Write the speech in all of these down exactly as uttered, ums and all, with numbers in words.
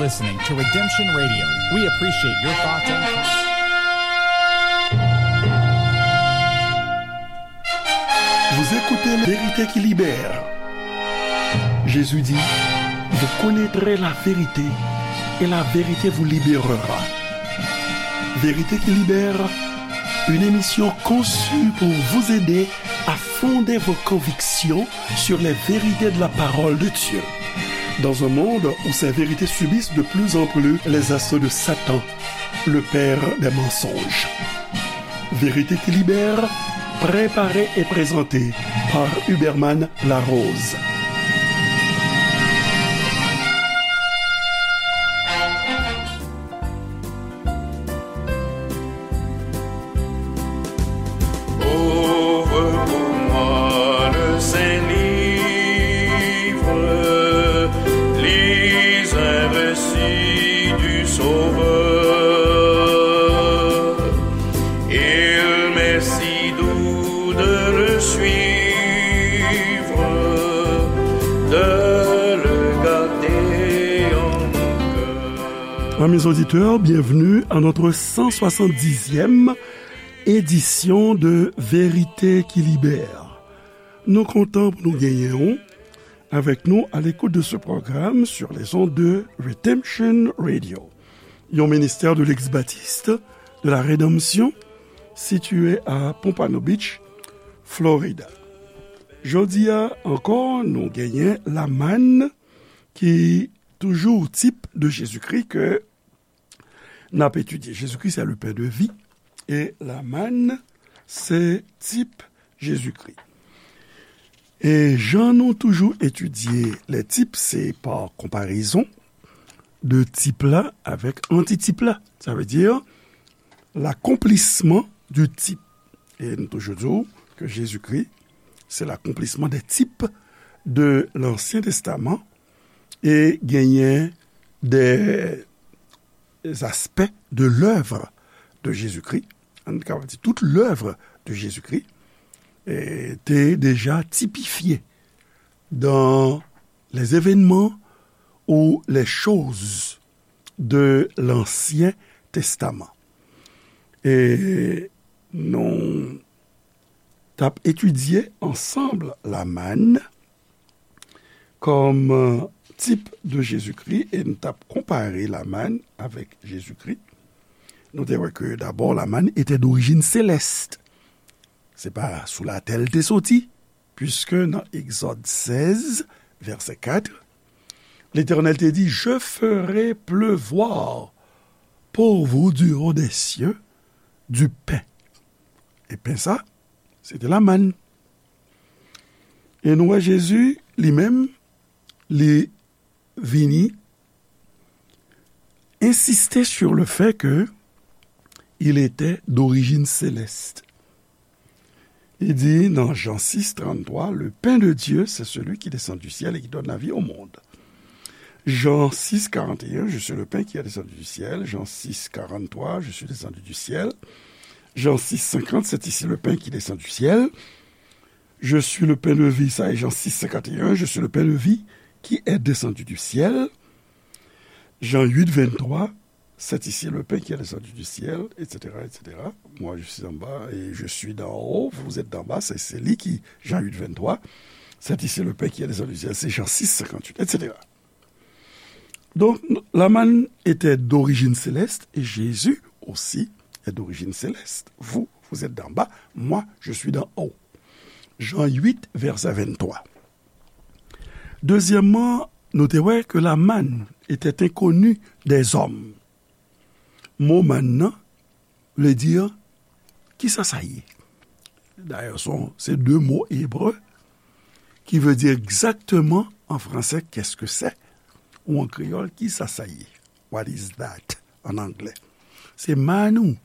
Listening to Redemption Radio. We appreciate your thoughts and comments. Vous écoutez Vérité qui libère. Jésus dit, vous connaîtrez la vérité et la vérité vous libérera. Vérité qui libère, une émission conçue pour vous aider à fonder vos convictions sur les vérités de la parole de Dieu. Dans un monde où ces vérités subissent de plus en plus les assauts de Satan, le père des mensonges. Vérité qui libère, préparée et présentée par Huberman Larose. Ouvre pour moi le saint livre, lis un récit du Sauveur. Il m'est si doux de le suivre, de le garder en mon cœur. Amis auditeurs, bienvenue à notre cent soixante-dixième édition de Vérité qui Libère. Nou kontan pou nou genyen w avec nous à l'écoute de ce programme sur les ondes de Redemption Radio, yon ministère de l'ex-baptiste de la Rédemption situé à Pompano Beach, Florida. Jodi a ankò, nou genyen lamàn ki toujou tip de Jezikri ke n ap etidye. Jezikri se le pen de vi e lamàn se tip Jezikri. E jan nou toujou etidye lè tip, se pa konparezon de tip la avèk antitip la. Sa vle di l'accomplissement du type. E nou toujou di w ke Jezikri se l'accomplissement des types de l'Ancien Testament e genyen des aspects de l'œuvre de Jésus-Christ, nou kapab di tout l'œuvre de Jésus-Christ, eh, te deja tipifye dans les événements ou les choses de l'Ancien Testament. E nou t ap etidye ansanm lamàn kòm, euh, tip de Jezikri, e n t ap konpare lamàn avèk Jezikri. Nou te wè ke dabò lamàn etè dorijin selès. Se pa sou latè l te soti, puiske nan Egzòd sèz, vèsè kat, Letènèl te di, Je ferai pleuvoir pour vous du haut des cieux du pain. E pen sa, se te lamàn. E nou wè Jezi, li menm, li vini insiste sur le fait que il était d'origine céleste. Li di nan Jan sis, tranntwa, Le pain de Dieu, c'est celui qui descend du ciel et qui donne la vie au monde. Jan sis, karant e en, Je suis le pain qui est descendu du ciel. Jan sis, karant twa, Je suis descendu du ciel. Jan sis, senkant, C'est ici le pain qui descend du ciel. Je suis le pain de vie, sa e Jan sis, senkant e en, Je suis le pain de vie qui est descendu du ciel. Jan uit, venntwa, C'est ici le pain qui est descendu du ciel, et cetera, et cetera. Moi, je suis en bas et je suis d'en haut, vous êtes d'en bas, c'est, c'est li ki, Jan uit, venntwa. C'est ici le pain qui est descendu du ciel, c'est Jan sis, senkant uit, et cetera. Donc, lamàn était d'origine céleste et Jésus aussi est d'origine céleste. Vous, vous êtes d'en bas, moi, je suis d'en haut. Jan uit, vèsè venntwa. Dezyèmman, nou te wè ke lamàn était inconnue des hommes. Mo màn nan vle di, kisa sa ye? Dayè, se, se de mo ebre ki vle di egzakteman an fransè, qu'est-ce que c'est? Ou an kreyòl, kisa sa ye? What is that? An anglè. Se manna.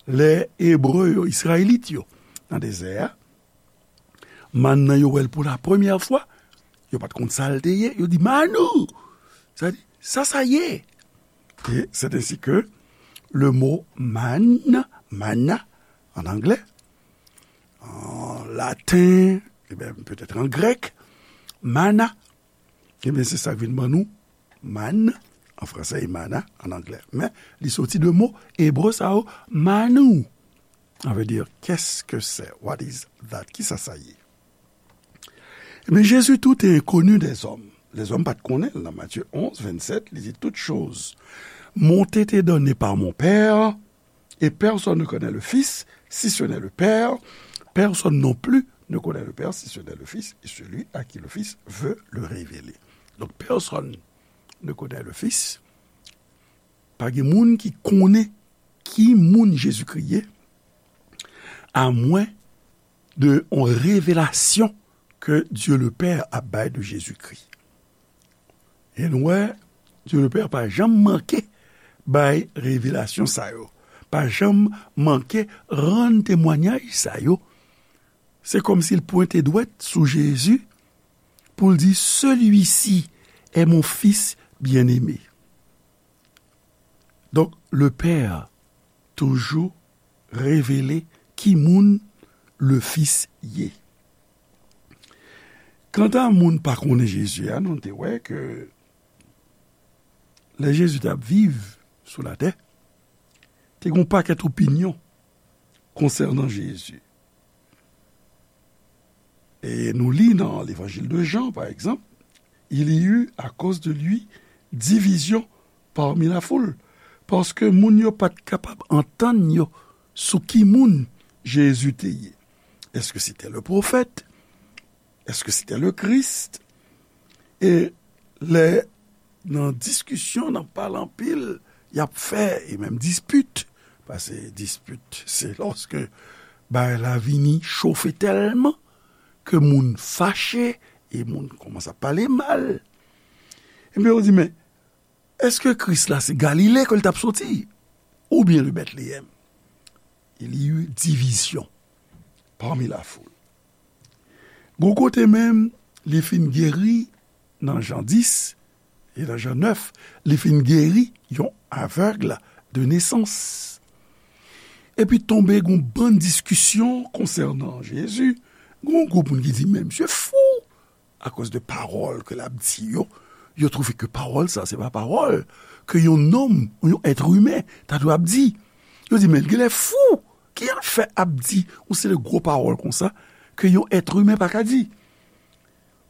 Lè Ebre yo, Izrayelit yo, nan dezè a, manna nan yo wè l pou la premyè fwa, yo pa t konn sa l te ye, yo di, Manna! Sa di, sa sa ye? Et c'est ainsi que le mot manne, manna, en anglais, en latin, et bien peut-être en grec, manna, et bien c'est ça qui vient de manna, manne, An fransè, e mana, an anglè. Men, li soti de mo ebre sa yo, manou. Sa vle di, qu'est-ce que c'est? What is that? Kisa sa ye? Ebyen, Jésus, tout est inconnu des hommes. Lèzòm pa t konnen l. Nan Matthieu onze, vingt-sept, li di, toutes choses m'ont été données par mon Père, et personne ne connaît le Fils, si ce n'est le Père. Personne non plus ne connaît le Père, si ce n'est le Fils, et celui à qui le Fils veut le révéler. Donc, personne ne connaît le Fils. Pa gen moun ki konnen ki moun Jezikri ye, amwen de yon revelasyon ke Dye le Pè ap bay de Jezikri. E nou wè, Dye le Pè pa janm manke bay revelasyon sa yo, pa janm manke rann temwanyaj sa yo. Se kòmsi l pwente dwèt sou Jezi pou l di, celui-ci est mon fils bien-aimé. Donk, le Pè toujou revele ki moun le Fis ye. Kanta moun pa konnen Jezi a, nou te wè ke lè Jezi t ap viv sou latè, te gen yon pakèt opinyon konsènan Jezi. E nou li nan Levanjil de Jan, pa egzanp, il y eut à cause de lui division parmi la foule, paske moun yo pa t kapab antann yo sou ki moun Jezi te ye. Est-ce que c'était le prophète? Est-ce que c'était le Christ? E lè nan diskisyon, nan pale anpil, y ap fè, e menm dispit, paske dispit, se lòske bagay la vini chofe tèlman ke moun fache e moun kòmanse ap pale mal. Ebyen, yo di, men, èske Kris la se Galile ke l t ap soti? Oubyen de Bètleyèm? Il y eut division parmi la foule. Gon kote menm, li fin geri nan Jan dis e nan Jan nèf, li fin geri yon avèg de nesans. Epi tonbe gon bann diskisyon konsènan Jezi. Gon gwoup moun ki di, men misye fou, akoz de pawòl ke l ap di yo. Yo twouve ke pawòl sa, se pa pawòl ke yon nonm ou yon èt imen ta dwe ap di. Yo di, men l genlè fou. Ki l fè ap di yon seri de gwo pawòl konsa ke yon èt imen pa ka di?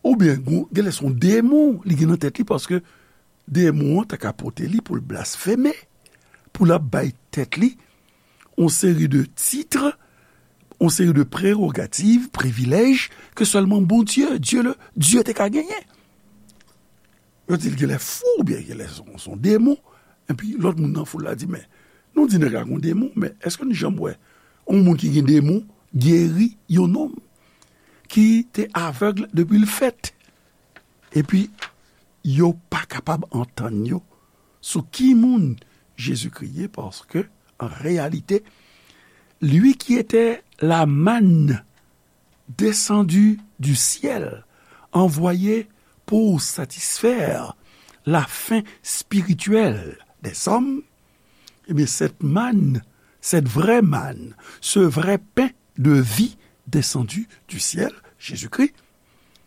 Oubyen, gon, genlè se yon demon li gen nan tèt li, paske demon an ta ka pote li pou l blasfeme, pou l ap bay tèt li yon seri de tit, yon seri de prerogativ, privilèj ke sèlman Bondye, Dye le, Dye te ka genyen. Yo di l genlè fou, oubyen genlè se yon, se yon demon. Epi lòt moun nan foul la di, men, nou di nèg la gon demon, men èske nou janm wè yon moun ki gen demon geri yon nonm ki te avèg depi l fèt? Epi yo pa kapab antann yo sou ki moun Jezikri ye, paske, an reyalite, lui qui était la manne descendue du ciel, envoyée pour satisfaire la faim spirituelle des hommes, eh bien, cette manne, cette vraie manne, ce vrai pain de vie descendu du ciel, Jésus-Christ,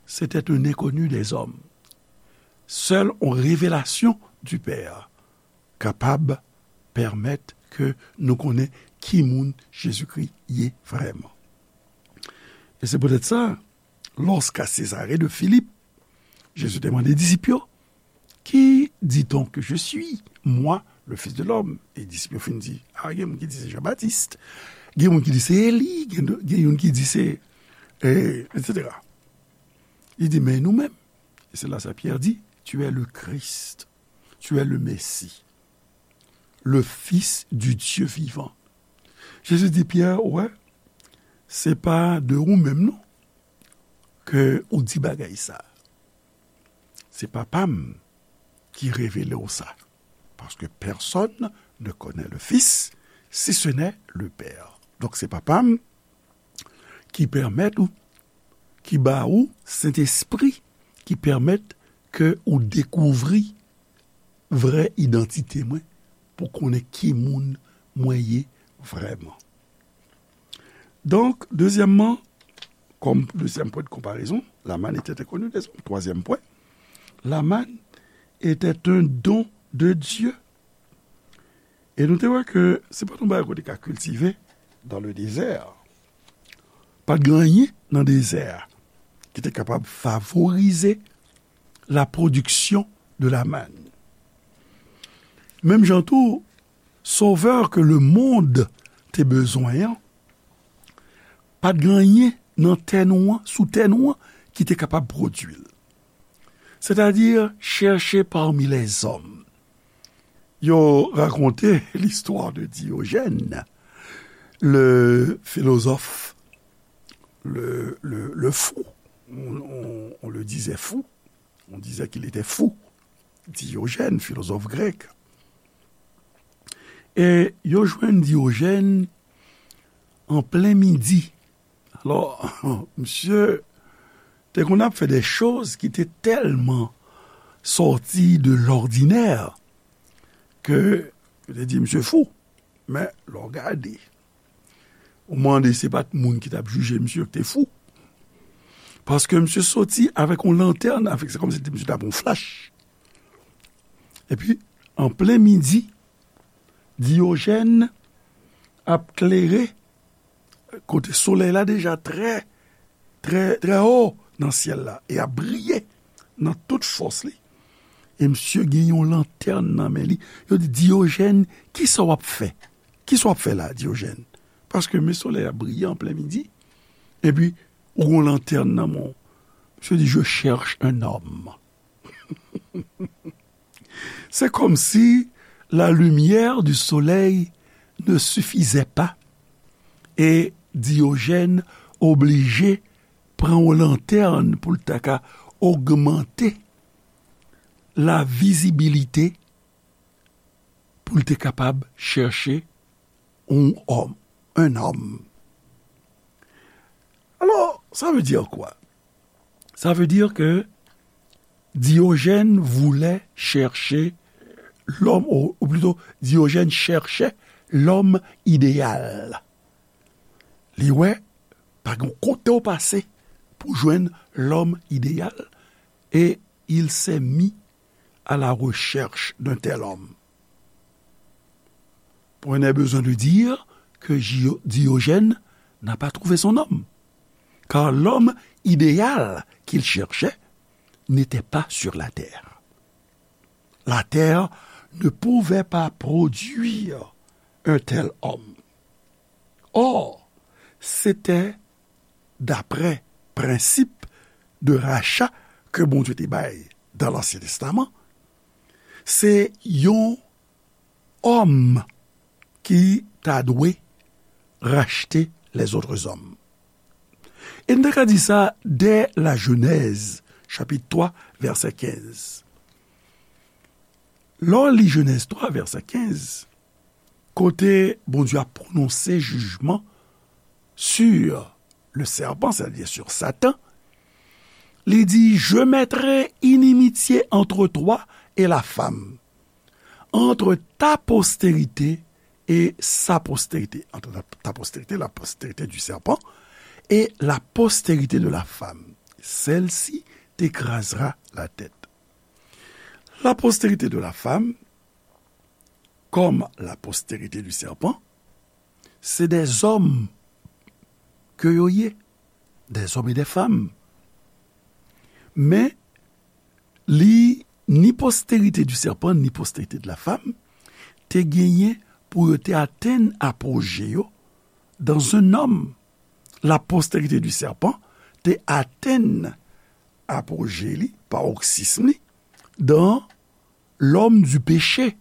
c'était un inconnu des hommes. Sèl yon revelasyon du Père kapab pèmèt ke nou konnen ki moun Jezikri ye vrèman. E se poutèt sa, lorsqu'à Césarée de Philippe, Jezi te mande disip yo, qui dit-on que je suis, moi, le Fils de l'homme? E disip yo fin di, a, gen moun ki di se Jan Batis, gen moun ki di se Eli, gen, gen youn ki di se, e, et cetera. Li di, men nou menm. E se la sa Pyè di, tu es le Christ, tu es le Messie, le Fils du Dieu vivant. Jezi di Pyè, wè, se pa de ou menm non ke ou di bagay sa. Se Papa m ki revele w sa. Parce que personne ne connaît le Fils si ce n'est le Père. Donk se Papa m ki pèmèt ou, ki ba ou Sentespri, ki pèmèt ke ou dekouvri vrè idantite mwen, pou konnen ki moun mwen ye vrèman. Donk, dezyèmman, kòm dezyèm pwen de konparezon, la manne était inconnue des hommes. Twazyèm pwen, la manne était un don de Dieu. E nou te wè ke se pa t yon bagay ke w te ka kiltive dans le désert. Pa t gen anyen nan dezè a ki te kapab favorize la production de la manne. Menm jan tou, sovè ke lemonn te bezwen an, pa t gen anyen nan tè nou an, sou tè nou an, ki te kapab pwodui l. Sètadi, chèche pami lèzòm. Yo rakonte listwa de Diogèn, le filozòf, le, le, le fou. On, on, on le disait fou. On disait qu'il était fou. Diogèn, filozòf grèk. E yo jwenn Diogèn an plen midi. Alò, misye te konn ap fè de choz ki te tèlman sòti de lòdinè ke yo te di misye fou. Men, lè w gade, ou mande se pa t moun ki t ap jije misye ki te fou. Paske misye soti avèk yon lantèn, avèk, se kòmsi misye t ap yon flach. Epi, an plen midi, Diogèn ap klere kote solèy la deja trè, trè, trè wo nan syèl la e ap briye nan tout fòs li. E misye gen yon lantèn nan men li. Yo di, Diogèn, kisa w ap fè? Kisa w ap fè la, Diogèn? Paske men solèy ap briye an plen midi, epi ou gen yon lantèn nan men w. Misye di, je cherche un homme. C'est comme si la lumière du soleil ne suffisait pas e Diogèn oblije pran yon lantèn pou l ta ka ogmante la vizibilite pou l te kapab chèche yon òm, un homme. Alors, ça veut dire quoi? Ça veut dire que Diogène voulait chercher l'homme, ou, ou plutôt, Diogène cherchait l'homme idéal. Li wè, pa gen kote w pase pou jwenn lòm ideyal, et il s'est mis à la recherche d'un tel homme. On a besoin de dire que Gio-, Diogène n'a pas trouvé son homme, car l'homme idéal qu'il cherchait n'était pas sur la terre. La terre ne pouvait pas produire un tel homme. Or, c'était d'après prensip de racha ke Bondye te bay dans l'Ancien Testament, se yon òm ki ta dwe rachte les autres hommes. E n ta ka di sa dè la Jenèz, chapit twa, vèsè kenz. Lè w li Jenèz twa, vèsè kenz, kote Bondye ap pwononse jijman sur le serpent, c'est-à-dire sur Satan, li di, je mettrai inimitié entre toi et la femme, entre ta postérité et sa postérité, entre ta, ta postérité, la postérité du serpent, et la postérité de la femme. Celle-ci t'écrasera la tête. La postérité de la femme, comme la postérité du serpent, se dè zòm ke yo ye, dè zòm e dè fanm. Men, li, ni postérité du serpent, ni postérité de la femme, te genyen pou yo te atenn apoje yo dans un homme. La postérité du serpent te atenn apoje li, paroxysme li, dans l'homme du péché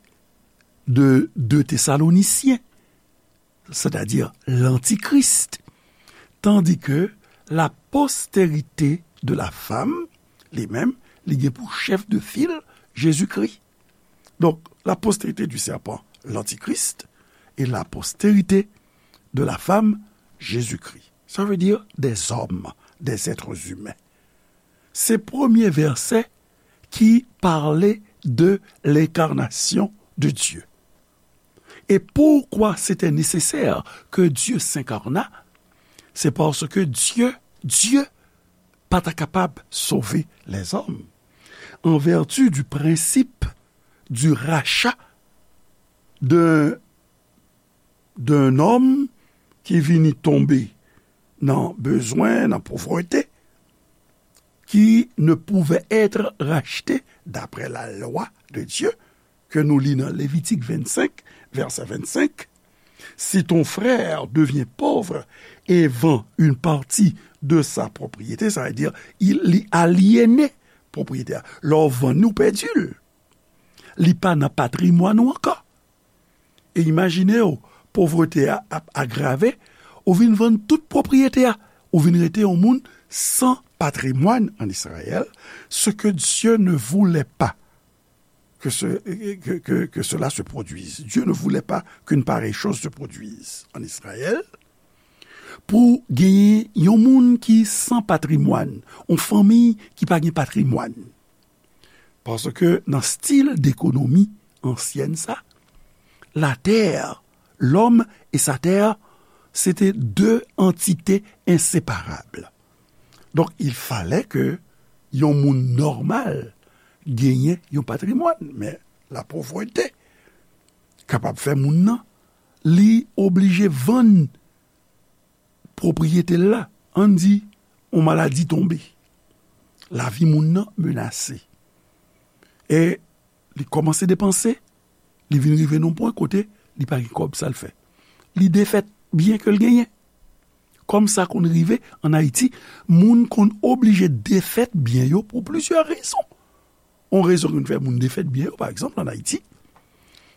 de deux Thessaloniciens, c'est-à-dire l'antichrist, tandis que la postérité de la femme, li menm, li gen pou chèf de fil Jésus-Christ. Donc, la postérité du serpent, l'antichrist, et la postérité de la femme, Jésus-Christ. Ça veut dire des hommes, des êtres humains. Se premye vèsè ki pale de l'incarnation de Dieu. Et pourquoi c'était nécessaire que Dieu s'incarna? C'est parce que Dieu, Dieu pa ta kapab sove lèzòm. En vertu du principe du rachat d'un d'un homme qui vini tomber dans besoin, dans pauvreté, qui ne pouvait être racheté d'après la loi de Dieu, ke nou li nan Levitik vennsenk, vèsè vennsenk, si ton frère devient pauvre et vend une partie de sa propriété, sa vle di, li alyene pwopriyete a. Lè w vann li, ou pèdi l. Li pa nan patrimwàn ou ankò. E imajine w, povrete a ap agrave, ou vin vann tout pwopriyete a, ou vin rete yon moun san patrimwàn an Izrayèl, ce que Dieu ne voulait pas que, ce, que, que, que cela se produise. Dieu ne voulait pas qu'une pareille chose se produise en Israël. Pou genyen yon moun ki san patrimwàn, yon fanmi ki pa gen patrimwàn. Paske nan stil dekonomi ansyèn sa, latè, lòm e sa tè, se te de antite enseparab. Donk, il fallait que yon moun nòmal genyen yon patrimwàn, men lapovrete kapab fè moun nan, li oblije vann pwopriyete l la, ann di, yon maladi tonbe, lavi moun nan menase, e li kòmanse depanse, li vin rive nan yon pwen kote li pa gen kòb, sa l fè? Li defèt byen ke l genyen. Kòm sa konn rive ann Ayiti, moun konn oblije defèt byen yo pou plizyè rezon. Yon rezon ki konn fè moun defèt byen yo, pa egzanp, ann Ayiti,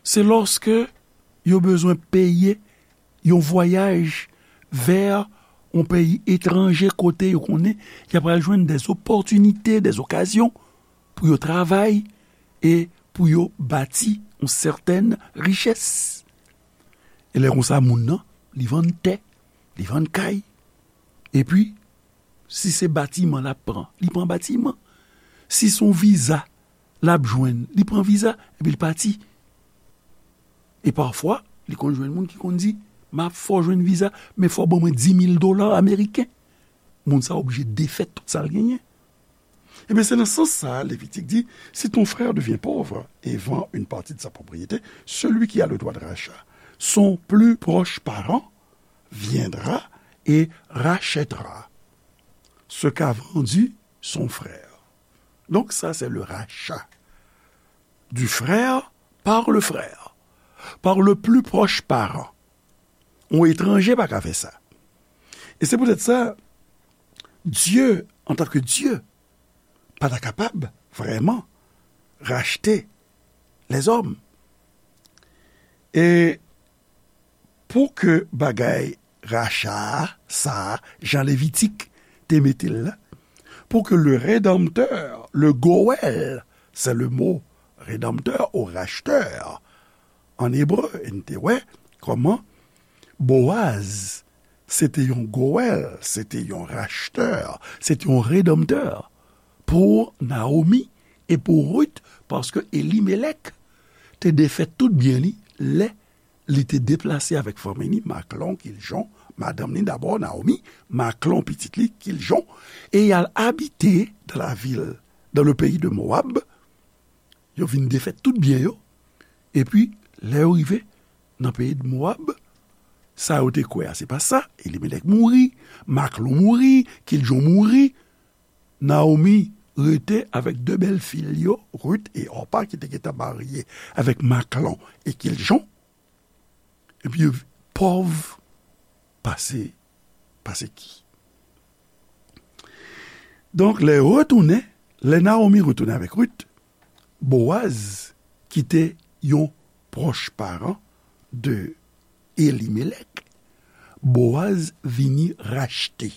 se lòske yo bezwen peye yon vwayaj vè yon peyi etranje kote yo konnen y ap pral jwenn des opportunités, des occasions pou yo travay e pou yo bati yon sètèn richès. E lè konsa, moun nan, li vann tè, li vann kay. Epi, si se batiman l ap pran, li pran batiman. Si se yon viza l ap jwenn, li pran viza, epi l pati. E pafwa, li konn jwenn moun ki konn di, "M ap fè w jwenn viza, men fò w ban mwen dis mil dola ameriken." Moun sa oblije defèt tout sa l genyen. Ebyen, se nan sans sa a, Levitik di, si ton frère devient pauvre et vend une partie de sa propriété, celui qui a le droit de rachat, son plus proche parent, viendra et rachètera ce qu'a vendu son frère. Donc, ça, c'est le rachat du frère par le frère, par le plus proche parent. Yon etranje pa ka fè sa. E se poutèt sa, Dye, antanke Dye, pa ta kapab vrèman rachte lèzòm. E pou ke bagay racha a, sa a, jan Levitik te mete l la, pou ke le Rédempteur, le Goël, c'est le mot rédempteur ou racheteur en hébreu, e n te wè kòman Boaz, se te yon Goël, se te yon racheteur, se te yon rédempteur pou Naomi e pou Ruth, paske Elimelèk te defèt tout byen li lè li te deplase avèk fanmi li, Maklon, Kiljon, madanm li dabò, Naomi, Maklon, pitit li, Kiljon, e y al abite dans la ville, dans le pays de Moab. Yo vin defèt tout byen yo. Epi, lè yo rive nan peyi de Moab, sa yo te kwè a, se pa sa. Elimelèk mouri, Maklon mouri, Kiljon mouri. Naomi rete avèk de bèl fi l yo, Ruth e Orpa, ki te gentan marye avèk Maklon e Kiljon. Epi yo pòv pase, pase ki. Donk, lè yo retounen, lè Naomi retounen avèk Ruth, Boaz, ki te yon pwòch paran de Elimelèk, Boaz vini rachte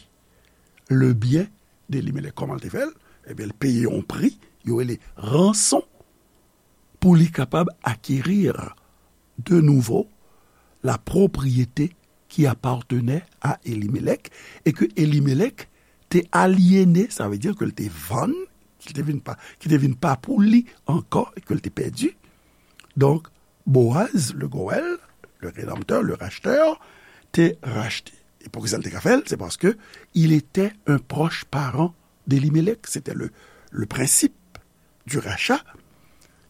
le byen de Elimelèk. Kòman l te fè l? Ebyen, l peye yon pri, yo rele ranson, pou li kapab acquérir de nouveau la propriété qui appartenait à Elimelèk, e ke Elimelèk te alyene, sa vle di ke l te vann, ki te vin pa, ki te vin pa pou li ankò, e ke l te pèdi. Donk, Boaz, le Goël, le Rédempteur, le Racheteur, te rachte. E poukisa l te ka fè l? Se paske il était un proche parent d'Elimelèk. C'était le, le principe du rachat.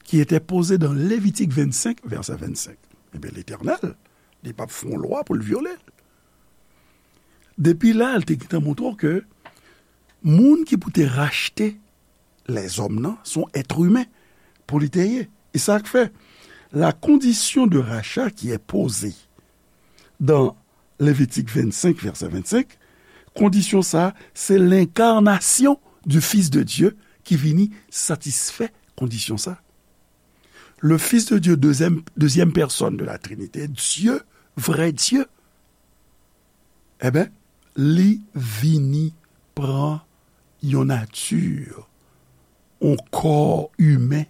qui était posée dans Lévitique vingt-cinq, verset vingt-cinq. Ebyen, Letènèl, li p ap fè yon lwa pou l vyole l. Depi la, l te gentan montre w ke moun ki pou te rachte lèzòm nan, se yon èt imen pou li te ye. E sa k fè, la condition de rachat qui est posée dans Lévitique vingt-cinq, verset vingt-cinq, kondisyon sa, se lenkarnasyon du Fils de Dieu ki vini satisfè kondisyon sa. Le Fils de Dieu, deuxième, deuxième personne de la Trinité, Dye, vrè Dye, ebyen, li vini pran yon nati, yon kò imen,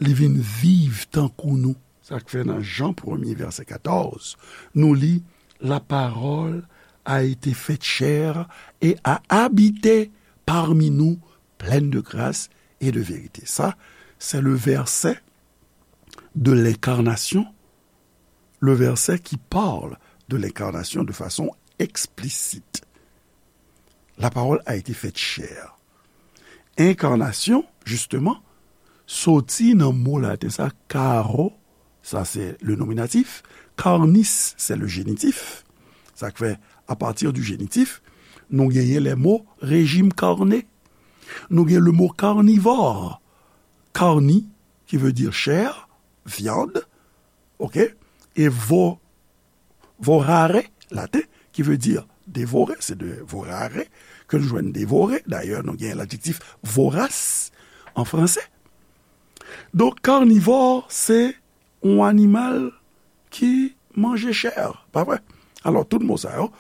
li vin viv tankou nou. Sa k fè nan Jan premye, vèsè katòz, nou li, La parole a été faite chair et a habité parmi nous, pleine de grâce et de vérité. Sa, c'est le verset de l'incarnation, le verset qui parle de l'incarnation de façon explicite. La parole a été faite chair. Enkarnasyon, jisteman, soti nan mo laten sa, caro, sa se le nominatif, carnis, se le génitif. Sa k fè, à partir du génitif, nou genyen les mots régime carné. Nou gen le mot carnivore. Carni, qui veut dire chair, viande, ok? E vo, vorare, laten, qui veut dire dévorer, c'est de vorare, ke nou jwenn dévorer. Dayè, nou gen l'adjektif vorace en français. Donk, carnivore, se yon animal ki manje chè, pa vre? Alò, tout mo sa yo,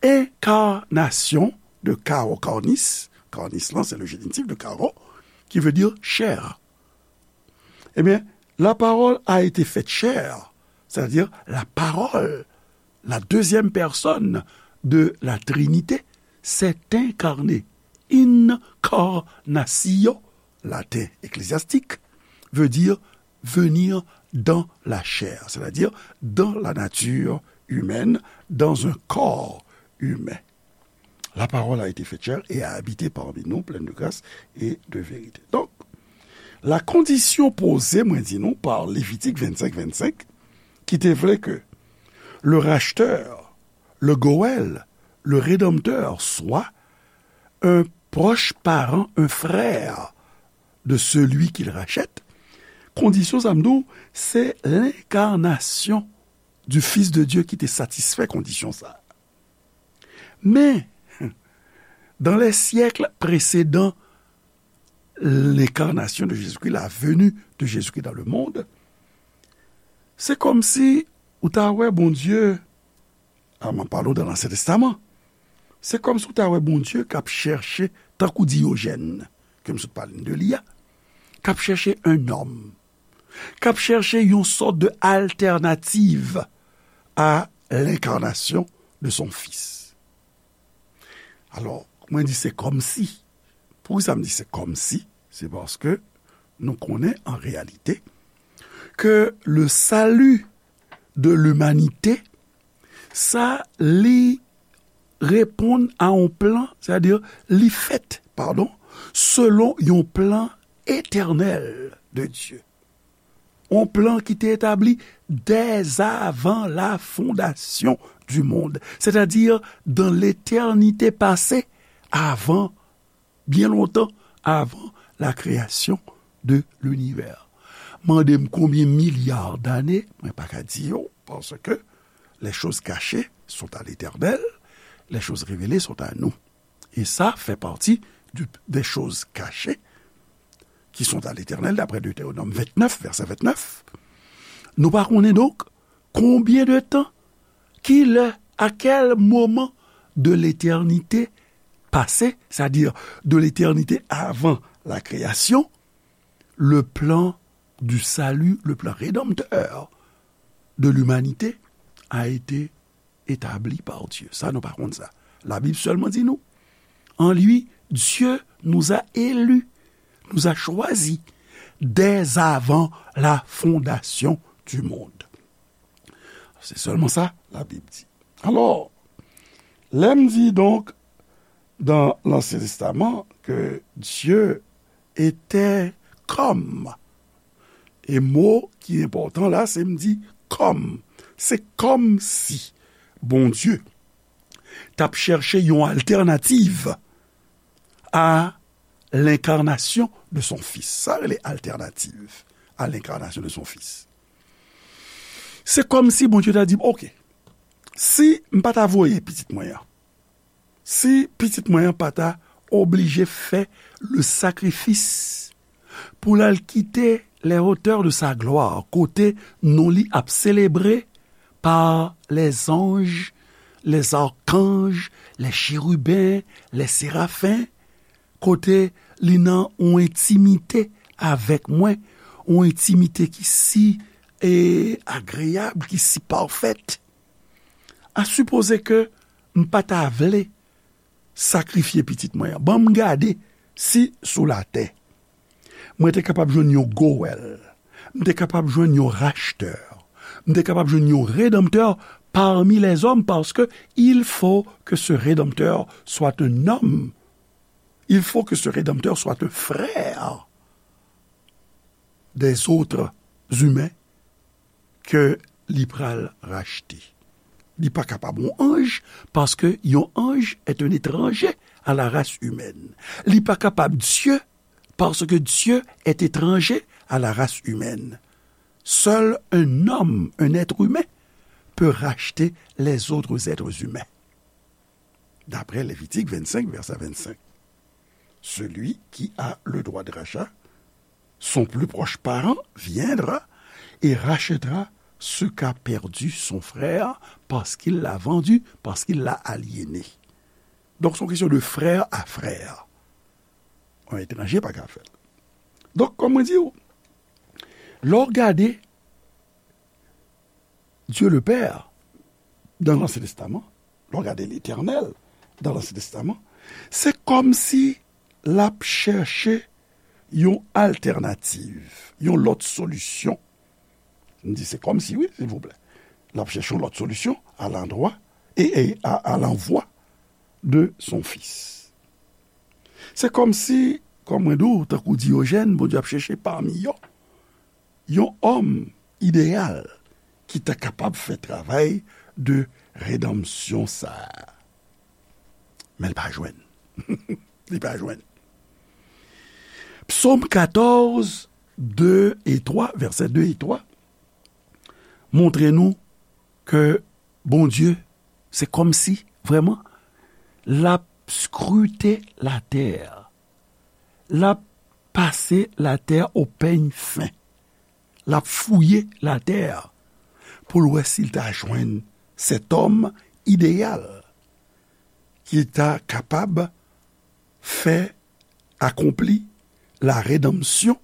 enkarnasyon de caro, carnis, carnis lan, se le génitif de caro, qui veut dire chair. Ebyen, la parole a été faite chair, c'est-à-dire la parole, la deuxième personne de la Trinité, s'est incarnée. Incarnatio, laten eklezastik, veut dire venir dans la chair, c'est-à-dire dans la nature humaine, dans un corps humain. La parole a été faite chair et a habité parmi nous, pleine de grâce et de vérité. Donc, la condition posée, mwen di nou, par Lévitique vingt-cinq, vingt-cinq, ki te vle ke le racheteur, le goel, le rédempteur soit un proche parent, un frère de celui qu'il rachète, kondisyon sa m di w, se lenkarnasyon du Fils de Dieu ki te satisfè kondisyon sa. Men, dans les siècles précédant l'incarnation de Jésus-Christ, la venue de Jésus-Christ dans le monde, se kòmsi ou ta wè Bondye, a, m ap pale w dan Ansyen Testaman, se kòmsi ou ta wè Bondye k ap chèche, tankou Diyojèn, ke m sot pale de li a, k ap chèche un homme, k ap chèche yon sòt de alternative à l'incarnation de son Fils. Alò, mwen di se kòmsi. Poukisa m di se kòmsi? Se paske nou konnen an reyalite ke le salut de l'humanité, sa li reponn a yon plan, sètadi li fèt, padon, selon yon plan etènèl de Dye. Yon plan ki te etabli dès avant la fondation du monde, c'est-à-dire dans l'éternité passée, avan, byen lontan, avan la création de l'univers. Mande m konbyen milya dane, mwen pa ka di yo, paske les choses cachées sont à l'Éternel, les choses révélées sont à nous. Et ça fait partie du, des choses cachées qui sont à l'Éternel, d'après Deutéronome vingt-neuf, verset vingt-neuf. Nou pa konnen donk konbyen de tan, ki lè, à quel moment de l'éternité passée, c'est-à-dire de l'éternité avant la création, le plan du salut, le plan rédempteur de l'humanité a été établi par Dieu. Sa, nou pa konn sa. La Bible seulement dit nous. En lui, Dieu nous a élus, nous a choisis dès avant la fondation du monde. Se sèlman sa la Bib di. Alò, lè m di donk dans l'Ancien Testament que Dieu était comme E mo ki enpòtan la, se m di kòm. Se kòmsi Bondye t ap chèche yon altènativ à l'incarnation de son Fils. Sa rele alternative à l'incarnation de son Fils. Se kòmsi Bondye ta di, "Oke, si m pa ta voye pitit mwen an, si pitit mwen an pa ta oblije fè le sakrifis pou l al kite les hauteurs de sa gloire, kote non li ap selebre par les anges, les archanges, les chérubins, les séraphins, kote li nan yon entimite avèk mwen, yon entimite ki si, e, agreyab, ki si pafèt. A sipoze ke m pa ta vle sakrifye pitit mwen an. Ban m gade si sou latè, mwen te kapab jwenn yon gowèl, m te kapab jwenn yon rachtè, m te kapab jwenn yon redanmtè parmi les hommes, parce que il faut que ce rédempteur soit un homme. Il faut que ce rédempteur soit un frère des autres humains ke li pral rachte. Li pa kapab yon anj, paske yon anj est un étranger à la race humaine. Li pa kapab Dye, paske Dye est étranger à la race humaine. Seul un homme, un être humain, peut racheter les autres êtres humains. D'après Lévitique vingt-cinq, verset vingt-cinq. Celui qui a le droit de rachat, son plus proche parent viendra et rachètera ce qu'a perdu son frère parce qu'il l'a vendu, parce qu'il l'a aliéné. Donk, se yon kesyon de frè a frè. Yon etranje pa ka fè l. Donk, kòm mwen di w, lè w gade Dieu le Père, dans l'Ancien Testament, lè w gade Letènèl, dans l'Ancien Testament, se kòmsi l ap chèche yon altènativ, yon lòt solisyon. M di se kòmsi, wi, silvouplè. L ap chèche yon lòt solisyon à l'endroit et, et à, à l'envoi de son Fils. Se kòmsi, kòm mwen di w, tankou Diyojèn, Bondye ap chèche pami yo yon òm ideyal ki ta kapab fè travay de redanmsyon sa a. Men l pa jwenn. Li pa jwenn. Psaume quatorze, deux et trois, vèsè de e twa, montre nou ke Bondye, se kòmsi, vrèman, l ap skrite latè. L ap pase latè au peigne fin. L ap fouye latè pou l wè si l ta jwenn cet homme idéal ki ta kapab fè akonpli la rédemption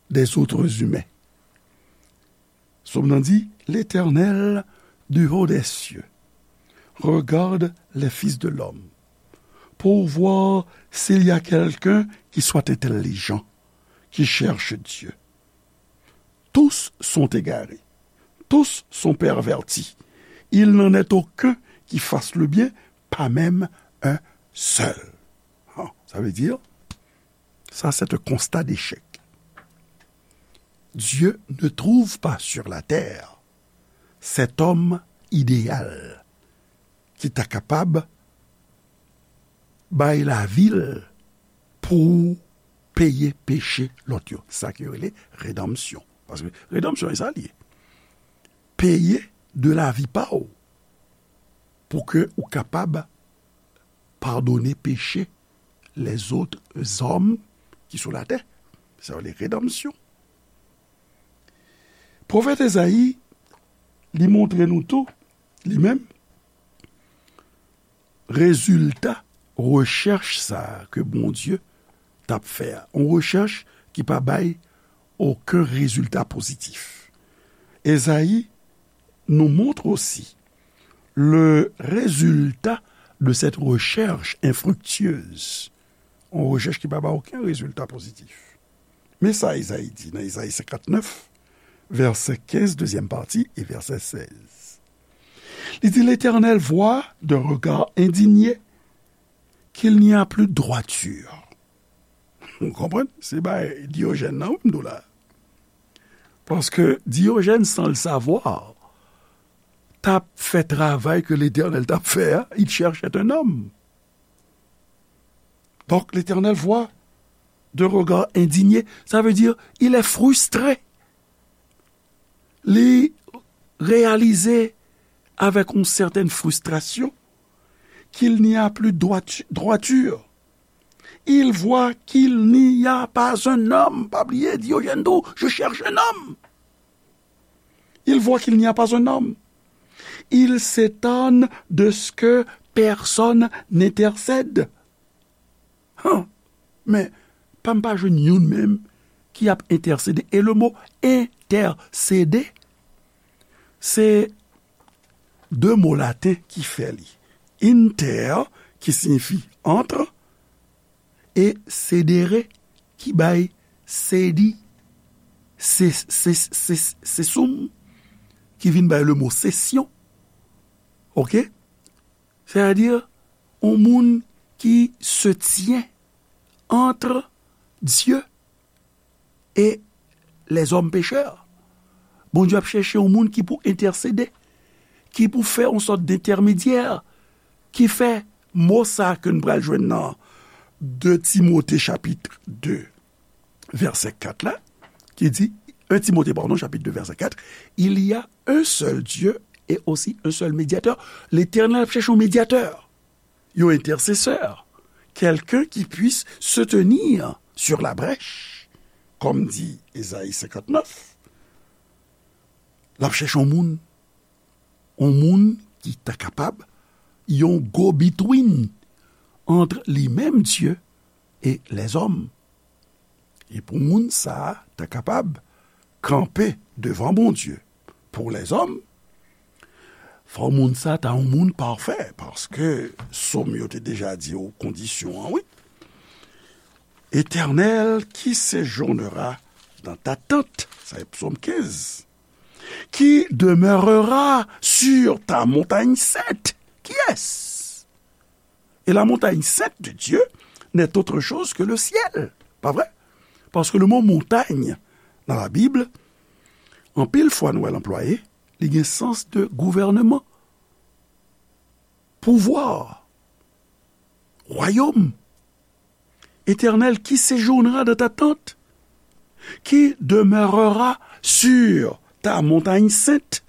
des autres humains. Sòm nan di, L'Éternel, du haut des cieux, regarde les fils de l'homme pour voir s'il y a quelqu'un qui soit intelligent, qui cherche Dieu. Tous sont égarés, tous sont pervertis. Il n'en est aucun qui fasse le bien, pas même un seul. Ah, ça veut dire, ça c'est un constat d'échec. Dieu ne trouve pas sur la terre cet homme idéal ki ta kapab bay lavi l pou peye peche lòt yo. Sa ki rele redanmsyon. Paske redanmsyon, e sa l ye. Peye de lavi pa w pou ke ou kapab padone peche lèzòt zòm ki sou latè. Sa rele redanmsyon. Pwofèt Ezayi, li montre nou tou, li menm, rezilta rechèch sa a ke Bondye t ap fè a. Yon rechèch ki pa bay okenn rezilta pozitif. Ezayi nous montre aussi le résultat de cette recherche infructueuse. Yon rechèch ki pa bay okenn rezilta pozitif. Men sa Ezayi di nan Ezayi senkantnèf, vèsè kenz, dezyèm pati, e vèsè sèz. Li di, L'Éternel voit d'un regard indigné qu'il n'y a plus de droiture. Ou konprann? Se bay Diyojèn nan, wi, m di w la. Paske Diyojèn, sans le savoir, t ap fè travay ke Letènèl t ap fè a, il cherchait un homme. Donc, l'Éternel voit d'un regard indigné, ça veut dire, il est frustré. Li reyalize avèk yon sètèn fristrasyon qu'il n'y a plus droit-, droiture. Il voit qu'il n'y a pas un homme. Pa bliye, Diyojèn di w, je cherche un homme. Il voit qu'il n'y a pas un homme. Il s'étonne de ce que personne n'intercède. Han, men pa m pa jwenn youn menm ki ap entèsede. E le mo entèsede, se de mo laten ki fè li. Inter, ki siyifi entre, e cedere, ki bay sedi, se, se, se, se, cesum, ki vin bay le mo sesyon. Oke? Sètadi, yon moun ki se tyen entre Dieu et les hommes pécheurs. Bondye ap chèche yon moun ki pou entèsede, ki pou fè yon sòt dentèmedyè, ki fè mo sa ke n pral jwenn nan de Timote chapit de, vèsè kat la, ki di, un Timote, pardon, chapit de, vèsè kat, il y a un seul Dieu et aussi un seul médiateur. Letènèl ap chèche yon medyatè, yon entèsesè, quelqu'un qui puisse se tenir sur la brèche, kòm di Ezayi senkantnèf. L ap chèche yon moun, yon moun ki ta kapab, yon go-between entre li menm, Dye, et les hommes. E pou moun sa a ta kapab kanpe devan Bondye pou lèzòm, fò moun sa ta yon moun pafè, paske Sòm yo te deja di w kondisyon an, wi. Éternel, qui séjournera dans ta tente, sa e Sòm kenz, qui demeurera sur ta montagne sainte. Qui est-ce? Et la montagne sainte de Dieu n'est autre chose que le ciel. Pa vre? Paske le mo montay nan Labib, anpil fwa nou wè l anplwaye, li gen sans de gouvènman, pouvwa, wayòm. Éternel, qui séjournera dans ta tente, qui demeurera sur ta montagne sainte.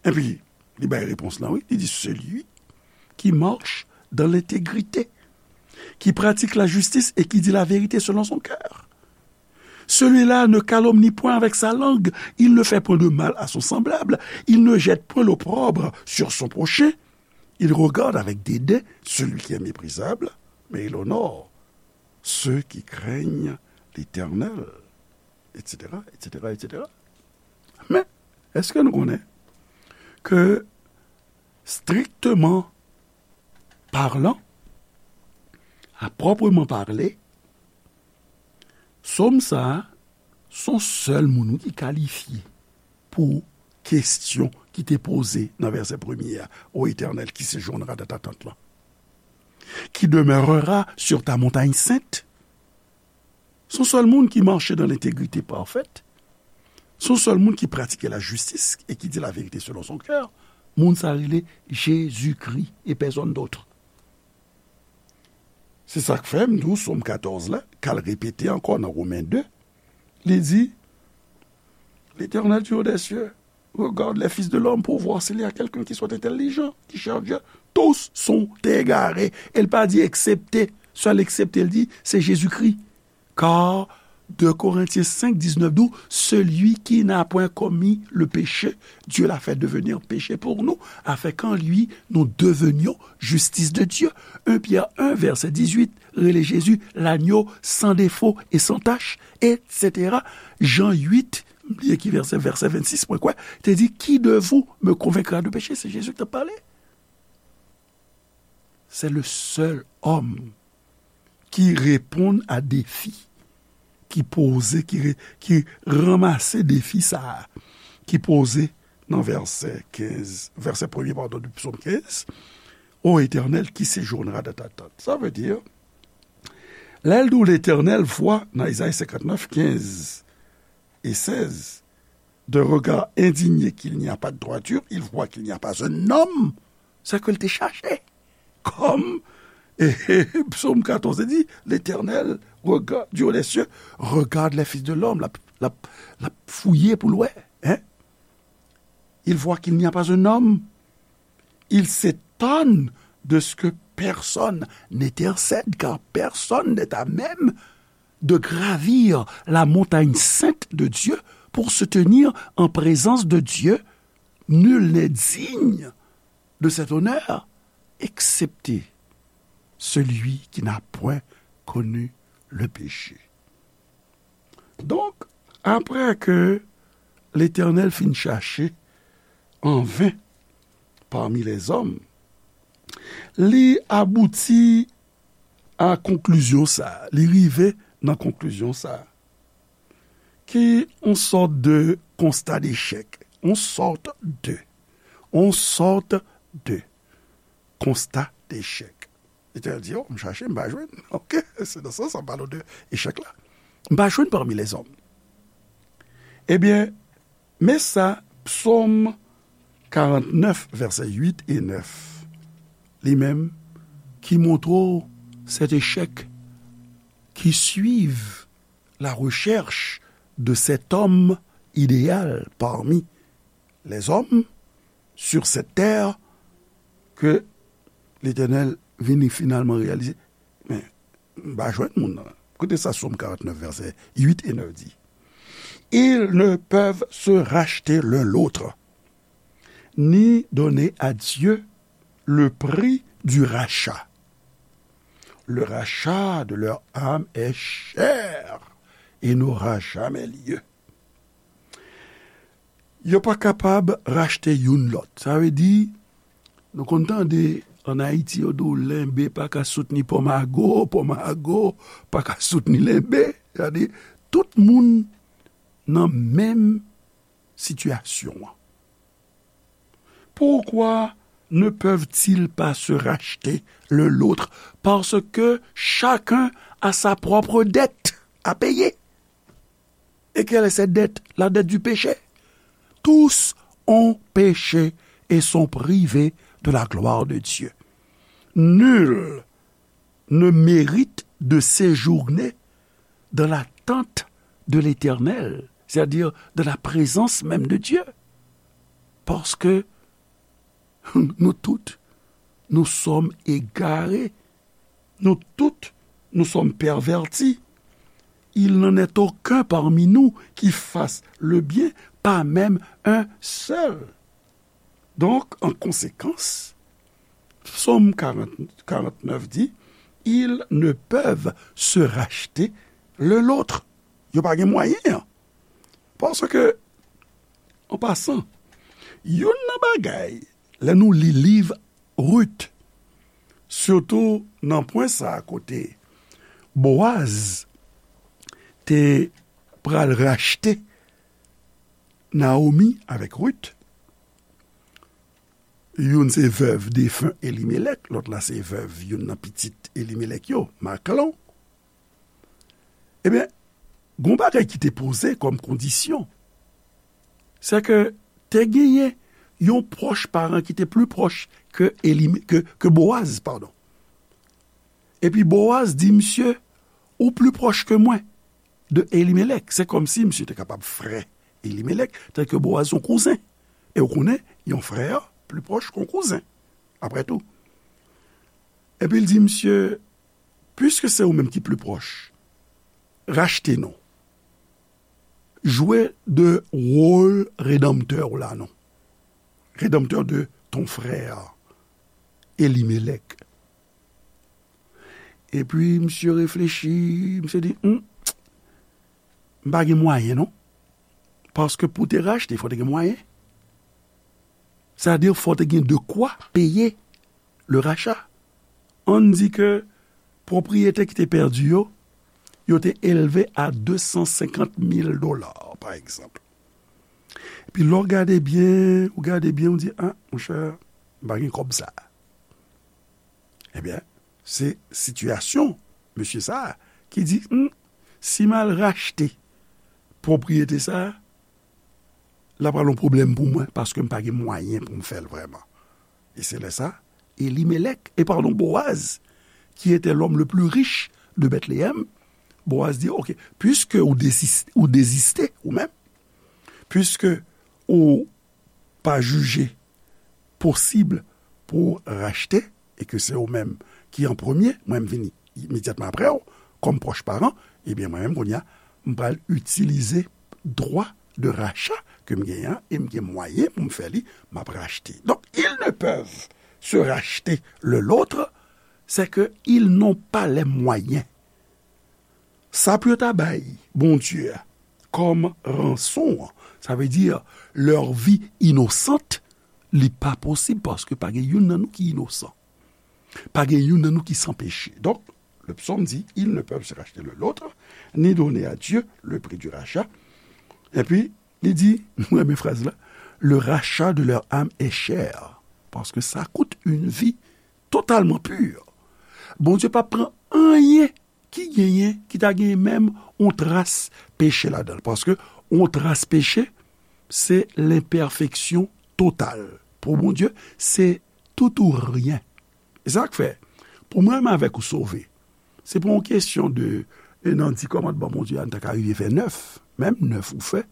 Epi, li bay repons lan, wi. Li di, celui qui marche dans l'intégrité, qui pratique la justice et qui dit la vérité selon son cœur. Celui-là ne calomnie point avec sa langue, il ne fait point de mal à son semblable, il ne jette point l'opprobre sur son prochain, il regarde avec dédain celui qui est méprisable, mais il honore ceux qui craignent l'Éternel, et cetera, et cetera, et cetera. Men, èske nou konnen ke, strictement parlant, à proprement parler, Sòm sa a, se yon sèl moun wi ki kalifye pou kesyon ki te poze nan vèsè premye a, Ô Éternel, qui séjournera dans ta tente lan, qui demeurera sur ta montagne sainte. Se yon sèl moun ki mache dans l'intégrité parfaite. Se yon sèl moun ki pratike la justice et qui dit la vérité selon son cœur. Moun sa rele Jezikri e pèsonn dòt. Se sa k fè m di w Sòm katòz la, k al repete ankò nan Women de, li di, L'Éternel du haut des cieux regarde les fils de l'homme pour voir s'il y a quelqu'un qui soit intelligent, qui cherche Dieu. Tous sont égarés. E l pa di eksepte, sèl eksepte, l di, se Jezikri. Car deux Corinthiens cinq, dix-neuf di w, celui qui n'a point commis le péché, Dieu l'a fait devenir péché pour nous, afin qu'en lui nous devenions justice de Dieu. Un Pierre un, verset dix-huit, rele Jezi lanyo san defo e san tach, et cetera. Jan uit, m bliye ki vèsè, vèsè vennsis, mwen kwè, te di, qui de vous me convaincra de péché? Se Jezi ki t ap pale. C'est le seul homme qui répond à défi, ki poze, ki re-, ki ranmase defi sa a, ki poze nan vèsè kenz, vèsè premye, padon, de Sòm kenz, Ô Éternel, qui séjournera dans ta tente. Sa vle di, lè l di w Letènèl vwa nan Ezayi senkantnèf, kenz e sèz, d'un regard indigné qu'il n'y a pas de droiture, il voit qu'il n'y a pas un homme, c'est que l te chache. Comme, et, et, Psaume quatorze dit, l'Éternel regarde, du haut des cieux, regarde les fils de l'homme, l ap, l ap, l ap fouye pou l wè, hein? Il voit qu'il n'y a pas un homme. Il s'étonne de ce que personne n'intercède, car personne n'est à même de gravir la montagne sainte de Dieu pour se tenir en présence de Dieu. Nul n'est digne de cet honneur, excepté celui qui n'a point connu le péché. Donk, apre ke Letènèl fin chache an ven pami lèzòm, li abouti a konklizyon sa a, li rive nan konklizyon sa a, ki yon sòt de konsta dechèk, yon sòt de, yon sòt de konsta dechèk. Letènèl di, "O, m chache, m pa jwenn." Oke, se nan sans sa, m pale w de echèk la. "M pa jwenn pami lèzòm." Ebyen, men sa, Psòm karantnèf, vèsè uit e nèf, li menm, ki montre w cet échec qui suit la recherche de cet homme idéal parmi les hommes sur cette terre, ke Letènèl vini finalman reyalize, men, m pa jwenn moun nan. Koute sa Sòm karantnèf, vèsè uit e nèf di, "Ils ne peuvent se racheter l'un l'autre, ni donner à Dieu le prix du rachat. Le rachat de leur âme est cher et n'aura jamais lieu." Yo pa kapab rachte youn lòt. Sa vle di, nou konn tande ann Ayiti, yo di w lenbe pa ka soutni pòmago, pòmago pa ka soutni lenbe. Sa vle di, tout moun nan menm sitiyasyon an. Pourquoi ne peuvent-ils pas se racheter l'un l'autre? Parce que chacun a sa propre dette à payer. Et quelle est cette dette? La dette du péché. Tous ont péché et sont privés de la gloire de Dieu. Nul ne mérite de séjourner dans la tente de l'Éternel, c'est-à-dire dans la présence même de Dieu. Parce que nous toutes, nous sommes égarés. Nous toutes, nous sommes pervertis. Il n'en est aucun parmi nous qui fasse le bien, pas même un seul. Donk, an konsekans, Sòm karant, karantnèf di, "Ils ne peuvent se racheter l'un l'autre." Yo pa gen mwayen an. Paske, an pasan, youn nan bagay, lè nou li liv Rit, sitou nan pwen sa a kote Boaz te pral rachte Naomi avèk Rit. Youn se vèv defen Elimelèk, lòt la se vèv youn nan pitit Elimelèk yo, Maklon. Ebyen, gon bagay ki te poze kòm kondisyon, se ke te genyen yon pwòch paran ki te pli pwòch ke Elime-, ke, ke Boaz, padon. Epi Boaz di misye, "Ou pli pwòch ke mwen de Elimelèk." Se kòmsi misye te kapab frè Elimelèk, tanke Boaz se yon kouzen. E ou konnen, yon frè pli pwòch ke yon kouzen, apre tou. Epi l di misye, "Piske se ou menm ki pli pwòch, rachte non. Jwe de wòl redanmtè w la non. Redanmtè de ton frè, Elimelèk." Epi misye reflechi, misye di, "Hmm, m pa gen mwayen non." Paske pou te rachte, fò te gen mwayen. Sa vle di, fò te gen de kwa peye le rachat. Ann di ke pwopriyete ki te pèdi yo, yo te elve a de san senkant mil dola, pa egzanp. Epi lè w gade byen, ou gade byen, ou di, "A, monchè, m pa gen kòb sa a." Ebyen, se sitiyasyon mesye sa a ki di, "Hmm, si m al rachte pwopriyete sa a, l ap pral yon pwoblèm pou mwen, paske m pa gen mwayen pou m fè l vrèman. E se lè sa, Elimelèk, e padon, Boaz, qui était l'homme le plus riche de Bethléem, Boaz di, "Ok, piske ou dezis-, ou deziste, ou menm, piske ou pa jije posib pou rachte, e ke se ou menm ki an premye, mwen m vini imedyatman apre w, kòm pwòch paran, ebyen, mwen menm, kounye a, m pral itilize dwa de racha ke m genyen an, e m gen mwayen pou m fè li, m ap rachte." Donc, ils ne peuvent se racheter l'un l'autre, c'est que ils n'ont pas les moyens. Sa pou yo ta bay Bondye a kòm ranson an, sa vle di, leur vie innocente, li pa posib paske pa gen youn nan nou ki inosan. Pa gen youn nan nou ki san peche. Donk, le psaume dit, ils ne peuvent se racheter l'un l'autre, ni donner à Dieu le prix du rachat. Epi, li di, mwen renmen fraz la, le rachat de leur âme est cher, paske sa kout une vie totalement pure. Bondye pa pran anyen ki genyen, ki ta genyen menm yon tras peche ladan l. Paske yon tras peche, se lenpèfeksyon total. Pou Bondye, se tout ou ryen. E sa k fè, pou mwen menm avèk ou sove, se pa yon kesyon de, e nan di kòmandman Bondye a, nou ta ka rive fè nèf, menm nèf ou fè,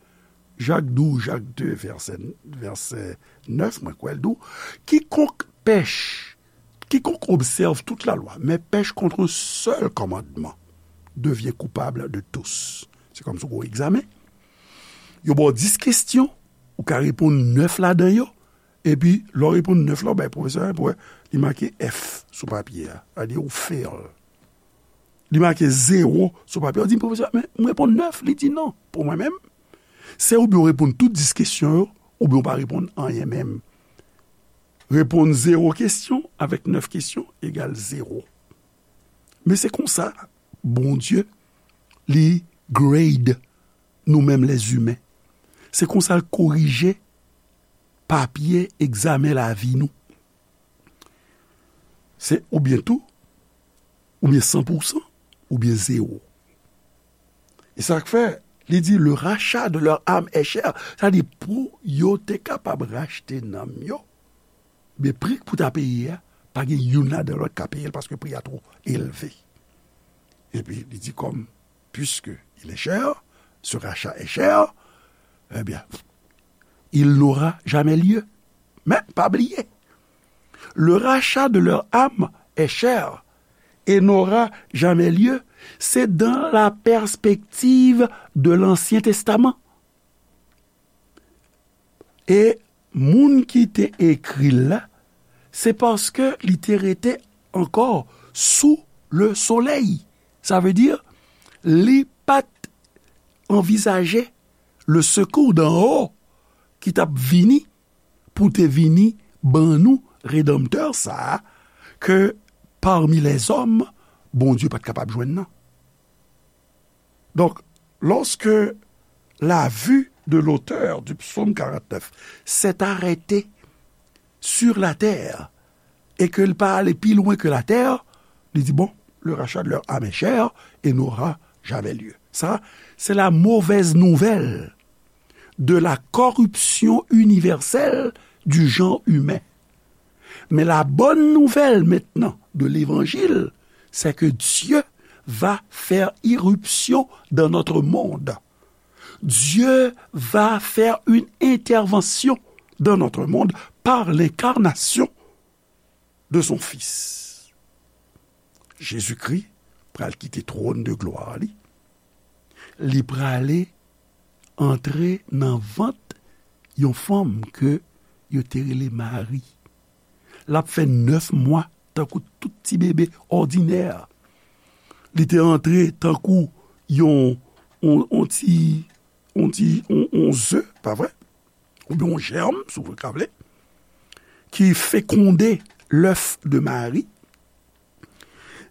Jak di w, Jak de, vèsè, vèsè nèf, mwen kwè l di w, quiconque pèche, quiconque observe toute la loi, mais pèche contre un seul commandement, devient coupable de tous. Se kòmsi w gen yon egzamen. Yo ba w dis kesyon, ou ka reponn nèf ladan yo, epi lè w reponn nèf la, w bay pwofesè a, pou wè, li make F sou papye a, sa vle di ou fail. Li make zewo sou papye a, w di, "Pwofesè, men m reponn nèf." Li di, "Non, pou mwen menm, se oubyen w reponn tout dis kesyon yo, oubyen w pa reponn anyen menm." Reponn zewo kesyon avèk nèf kesyon egal zewo. Men se konsa Bondye, li grade nou menm lèzimen. Se konsa l korije papye egzamen lavi nou. Se oubyen tou, oubyen san pou san, oubyen zewo. E sa k fè, li di, le rachat de leur âme est cher. Sa di, pou yo te kapab rachte nanm yo, men pri k pou ta peye a, pa gen youn ladan lòt ka peye l, paske pri a twò elve. Epi, li di, comme, puisque il est cher, ce rachat est cher, eh bien, il n'aura jamais lieu. Men, pa bliye, le rachat de leur âme est cher et n'aura jamais lieu, c'est dans la perspective de l'Ancien Testament. E moun ki te ekri l la, se paske li te rete ankò sou le soleil. Sa vle di, li pa t anvizaje le secours d'en haut ki t ap vini pou te vini ban nou Redanmtè sa a, ke parmi les hommes, Bondye pa t kapab jwenn nan. Donc, lorsque la vue de l'auteur du psaume quarante-neuf s'est arrêtée sur la terre et que l pa ale pi lwen ke latè, li di, bon, le rachat de leur âme est cher et n'aura jamais lieu. Ça, c'est la mauvaise nouvelle de la corruption universelle du genre humain. Mais la bonne nouvelle maintenant de l'évangile, c'est que Dieu va faire irruption dans notre monde. Dieu va faire une intervention dans notre monde par l'incarnation de son Fils. Jezikri pral kite twòn de glwa li. Li prale antre nan vant yon fanm ke yo te rele Mari. L ap fè nèf mwa tankou tout ti bebe òdinè. Li te antre tankou yon, yon, yon ti, yon ti, yon, yon ze, pa vre? Oubyen yon jèm, si w ka vle, ki fekonde lèf de Mari.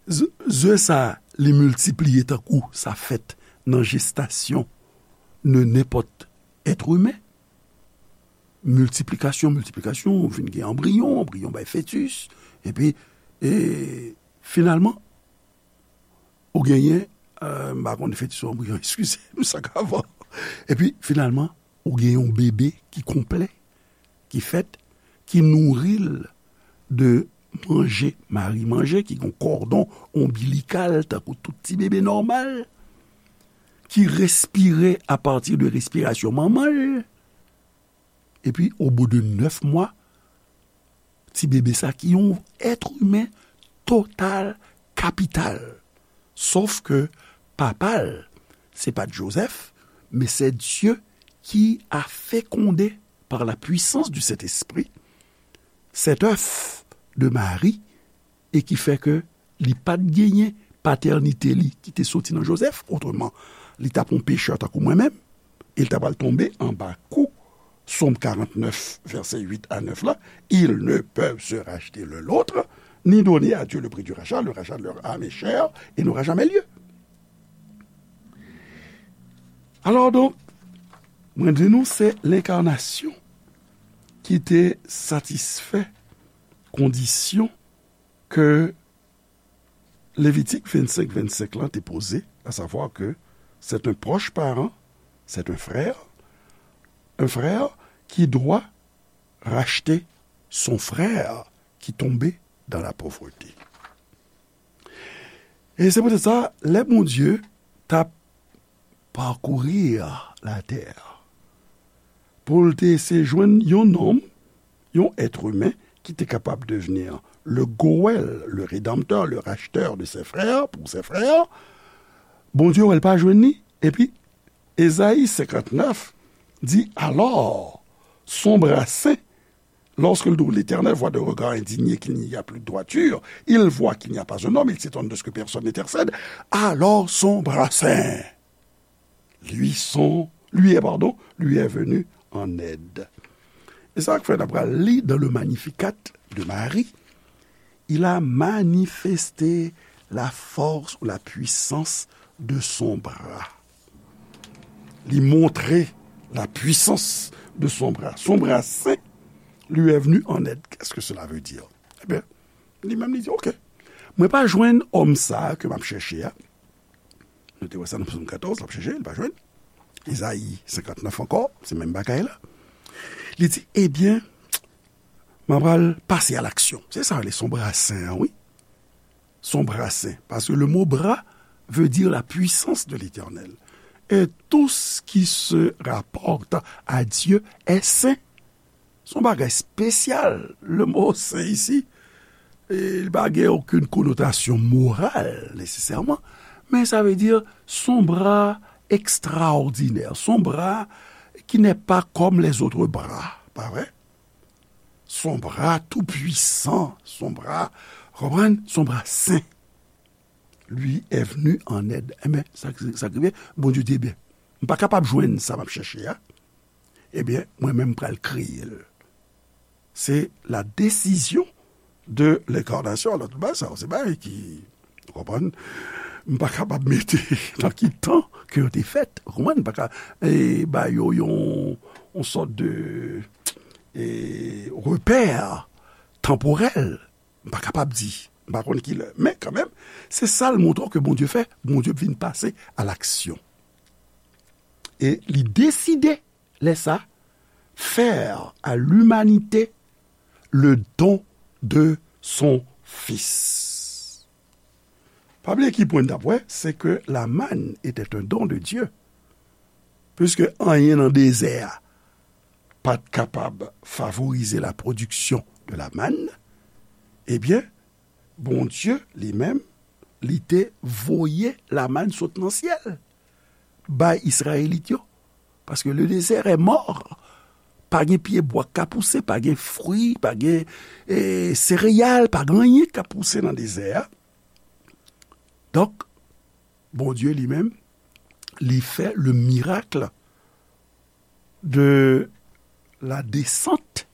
Ze, ze sa, li miltipliye tankou sa fèt nan jestasyon de nenpòt èt imen. Miltiplikasyon, miltiplikasyon, ou vin gen anbriyon, anbriyon bay fetis, epi, e, finalman, ou genyen, e, m pa konn fetis ou anbriyon, eskize m, sa k avan. Epi, finalman, Ou gen yon bebe ki konplè, ki fèt, ki nouri l de manje, mari manje, ki gen yon kòdon onbilikal, tankou tout ti bebe nòmal, ki respire apati de respirasyon manman l. Epi, au bout de nèf mwa, ti bebe sa ki yon èt imen total, kapital. Sof ke papa l, se pa t Jozèf, men c'est Dieu qui a fécondé par la puissance du Saint-Esprit cet œuf de Marie, e ki fè ke li pa t genyen patènite li ki te soti nan Jozèf, otreman, li t ap yon pechè tankou mwen menm, e l ta pral tonbe anba kou Sòm karantnèf, vèsè uit a nèf la, ils ne peuvent se racheter l'un l'autre, ni donner à Dieu le prix du rachat, le rachat de leur âme est cher et n'aura jamais lieu. Alò donk, mwen di nou se lenkarnasyon ki te satisfè kondisyon ke Levitik vennsenk vennsenk lan te poze, à savoir que c'est un proche parent, c'est un frère, un frère qui doit racheter son frère qui tombait dans la pauvreté. E se poutèt sa, lè Bondye t ap parcourir la terre pou l te eseye jwenn yon nonm, yon èt imen ki te kapab devni le goèl, le rédempteur, le racheteur de ses frères, pour ses frères, Bondye wè l pa jwenn li, epi Ezayi senkantnèf di, alors, son bras saint, lorsque l'Éternel voit d'un regard indigné qu'il n'y a plus de droiture, il voit qu'il n'y a pas un homme, il s'étonne de ce que personne n'intercède, alors son bras saint lui sont, lui est, pardon, lui est venu en aide. E sa k fè n ap pral li dans le Magnificat de Marie, il a manifesté la force ou la puissance de son bras. Li montre la puissance de son bras. Son bras saint lui est venu en aide. Qu'est-ce que cela veut dire? Ebyen, li menm li di, ok, mwen pa jwenn òm sa a ke m ap chèche a. Nou te wè sa nan Sòm katòz, l ap chèche, li pa jwenn. Ezayi senkantnèf ankò, se menm bagay la. Li di, ebyen, m ap pral pase a laksyon. Se sa, se son bras saint an, wi. Son bras saint. Parce que le mot bras veut dire la puissance de l'Éternel. Et tout ce qui se rapporte à Dieu est saint. Se yon bagay espesyal, le mot saint isi. E li pa gen okenn konotasyon moral, nesesèman, men sa vle di, se yon bra ekstraòdinè, se yon bra qui n'est pas comme les autres bras, pa vre? Se yon bra tou pwisan, se yon bra, konprann? Se yon bra sen. Lui est venu en aide. Enben, sa, sa k rive, Bondye di, ebyen, m pa kapab jwenn sa m ap chèche a. Ebyen, mwen menm m pral kreye l. Se la décision de l'incarnation. Alò, tout bagay sa yo, se bagay ki, ou konprann, m pa kapab mete nan ki tan ke yo te fèt. Ou konprann? M pa ka, e, ba yo yon, yon sòt de, e, repè tanporèl. M pa kapab di. M pa konn ki lè. Men kanmenm, se sa l montre w ke Bondye fè. Bondye vin pase a laksyon. E li deside, lè sa, faire à l'humanité le don de son Fils. Pa bliye ki pwen n t ap wè, c'est que la manne était un don de Dieu. Puisque anyen nan dezè a pa t kapab favorize la production de la manne, ebyen, Bondye, li menm, li te voye la manne sot nan syèl bay Izrayelit yo. Parce que le désert est mort. Pa gen pyebwa k ka pouse, pa gen fwi, pa gen, e, sereyal, pa gen anyen k ka pouse nan dezè a. Donk, Bondye li menm, li fè le miracle de la descente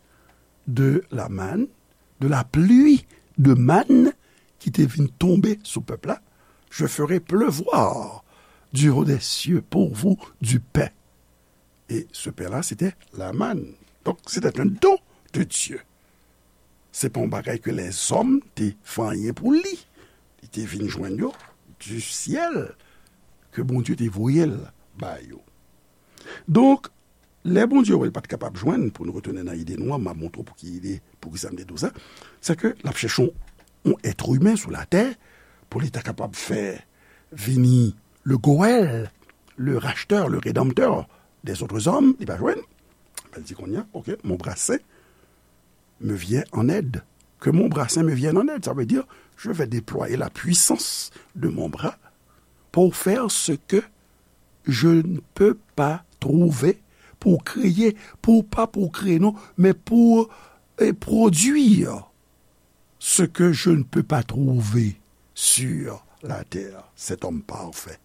de la manne, de la pluie de manne ki te vin tonbe sou pèp la. Je ferai pleuvoir du haut des cieux pour vous du pain. Et ce pain-là, c'était la manne. Donc, c'était un don de Dieu. Se pa yon bagay ke lèzòm te fè anyen pou li. Li te vin jwenn yo du ciel, ke Bondye te voye l ba yo. Donk, Lè Bondye wè l pa t kapab jwenn, pou nou retounen nan ide nou an, m ap montre w pou ki ide, pou ki sa m te di w sa, se ke l ap chèche yon, yon èt imen sou latè pou li ta kapab fè vini le Goël, le racheteur, le rédempteur des autres hommes, li pa jwenn. L di kounye a, ok, mon bras saint me vient en aide. Que mon bras saint me vienne en aide. Ça veut dire, je vais déployer la puissance de mon bras pour faire ce que je ne peux pas trouver, pour créer, pour, pas pour créer, non, mais pour, eh, produire ce que je ne peux pas trouver sur la terre, cet homme parfait.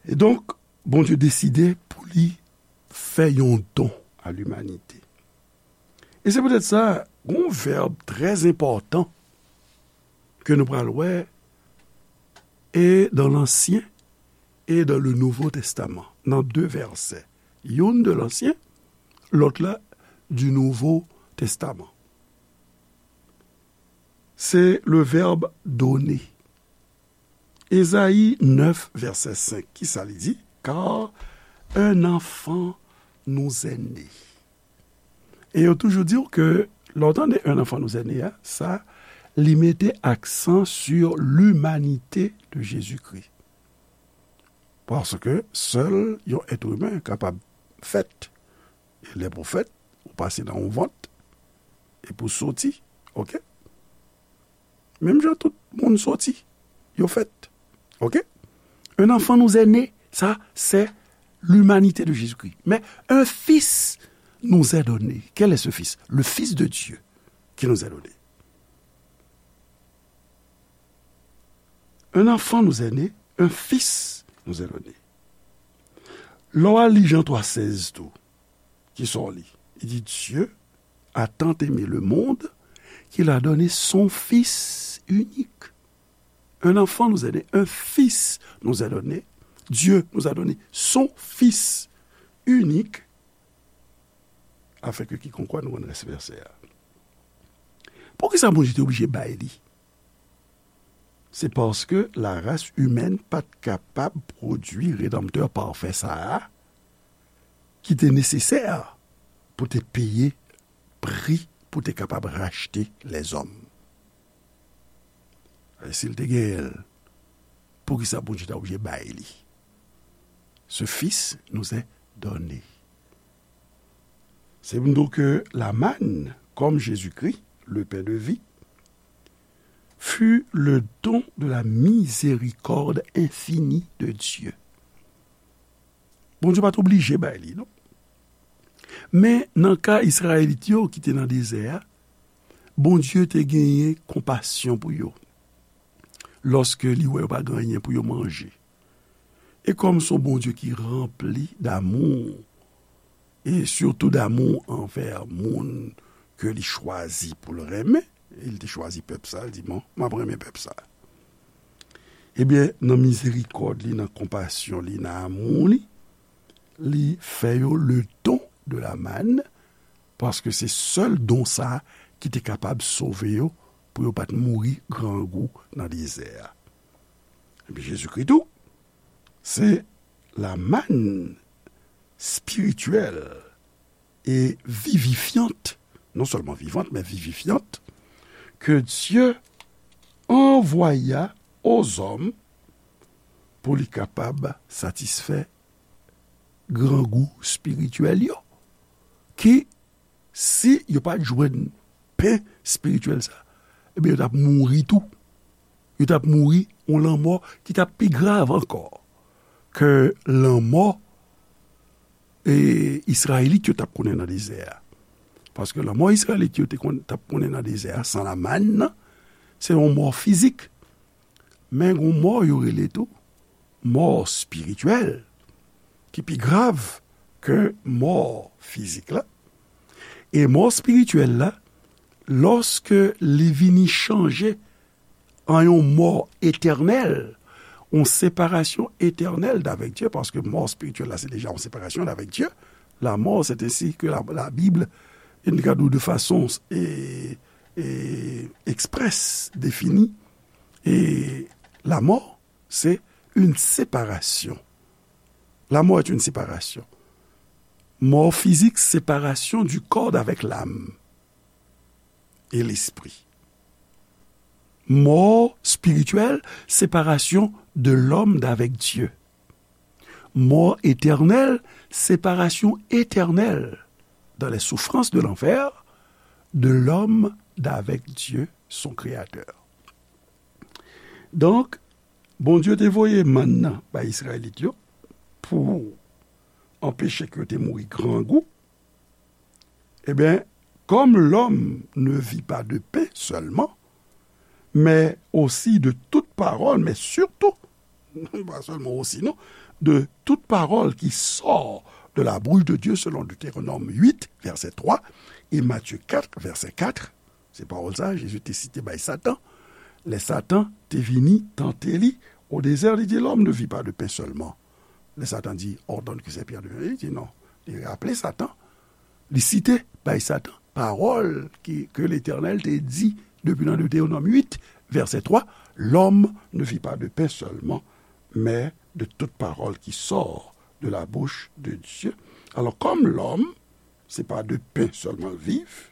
E donk, Bondye deside pou li fè yon don a limanite. E se poutèt sa, gon vèb trè enpòtan ke nou pral wè e dans l'Ancien et dans le Nouveau Testament, nan de vèsè. Youn de l'Ancien, lòt la du Nouveau Testament. Se le vèb donner. Ezayi nèf, vèsè senk, ki sa li di? Car un enfant nous est né. E yo toujou di w ke lè w tande un enfant nous est né a, sa, li mete aksan sur l'humanité de Jésus-Christ. Paske sèl yon èt imen kapab fèt. E lè pou fèt, ou pase nan yon vant, e pou soti, ok? Menm jan tout moun soti, yo fèt, ok? Un enfant nous est né, ça, c'est l'humanité de Jésus-Christ. Mais un fils nous est donné. Quel est ce fils? Le Fils de Dieu qui nous est donné. Un enfant nous est né, un fils nous est donné. Lè w al li Jan twa sèz tou, ki sa w li? Li di, Dieu a tant aimé le monde qu'il a donné son Fils unique. Un enfant nous est né, un fils nous est donné. Dieu nous a donné son Fils unique, afin que quiconque croit, nou konn rès vèsè a. Poukisa Bondye te oblije bay li? Se paske la race humaine pa t kapab pwodui redanmtè pafè sa a ki te nesesè pou te peye pri pou te kapab rachte lèzòm. E si l te genyen l, poukisa Bondye ta oblije bay li? Ce Fils nous est donné. Se pou nou ke la manne, comme Jésus-Christ, le pain de vie, fut le don de la miséricorde infinie de Dieu. Bondye pa t oblije bay li, non. Men, nan ka Izrayelit yo ki te nan dezè a, Bondye te genyen konpasyon pou yo. Lòske li wè yo pa gen anyen pou yo manje. E kòm se yon Bondye ki ranpli damou, e sitou damou anvè moun ke li chwazi pou l renmen, e li te chwazi pèp sa, li di, "Bon, m ap renmen pèp sa." Ebyen, nan mizerikòd li, nan konpasyon li, nan amou li, li fè yo le don de la manne, paske se sèl don sa a ki te kapab sove yo pou yo pa t mouri grangou nan dezè a. Epi Jezikri tou, se la manne spirityèl e vivifyant, non sèlman vivant, men vivifyant, que Dieu envoya aux hommes pou li kapab satisfè grangou spirityèl yo, ki, si yo pa t jwenn pen spirityèl sa, ebyen, yo t ap mouri tou. Yo t ap mouri yon lanmò ki t ap pi grav ankò ke lanmò, e, Izrayelit yo t ap konnen nan dezè a. Paske lanmò Izrayelit yo te konn, t ap konnen nan dezè a, san la manne nan, se yon mò fizik. Men gon mò yo rele tou mò espirityèl, ki pi grav ke mò fizik la. E mò espirityèl la, lòske li vini chanje an yon mò etènèl, yon separasyon etènèl d'avec Dieu, paske mò espirityèl la, se deja yon separasyon d'avec Dieu. La mort, c'est ainsi que la, la Bible, une gadou de façon, et, et express, définie. Et la mort, c'est une séparation La mort est une séparation. Mort physique, séparation du corps d'avec l'âme et l'esprit. Mort spirituelle, séparation de l'homme d'avec Dieu. Mort éternelle, séparation éternelle dans les souffrances de l'enfer de l'homme d'avec Dieu, son créateur. Donk, Bondye te voye mann nan bay Izrayelit yo pou anpeche ke yo te mouri grangou. Ebyen, comme l'homme ne vit pas de pain seulement, mais aussi de toute parole, mais surtout, pas seulement aussi, non, de toute parole qui sort de la bouche de Dieu, selon Deutéronome huit, verset trois, et Matthieu quatre, verset quatre. Se pawòl sa Jezi te site bay Satan. Lè Satan te vini tante li o dezè, li di, l'homme ne vit pas de pain seulement. Lè Satan di, ordonne que ces pierres deviennent, li di non. Li raple Satan, li site bay Satan pawòl ki, ke Letènèl te di depi nan Deutéronome huit, verset trois, l'homme ne vit pas de pain seulement, mais de toute parole qui sort de la bouche de Dieu. Alors, comme l'homme, se pa de pen sèlman l viv.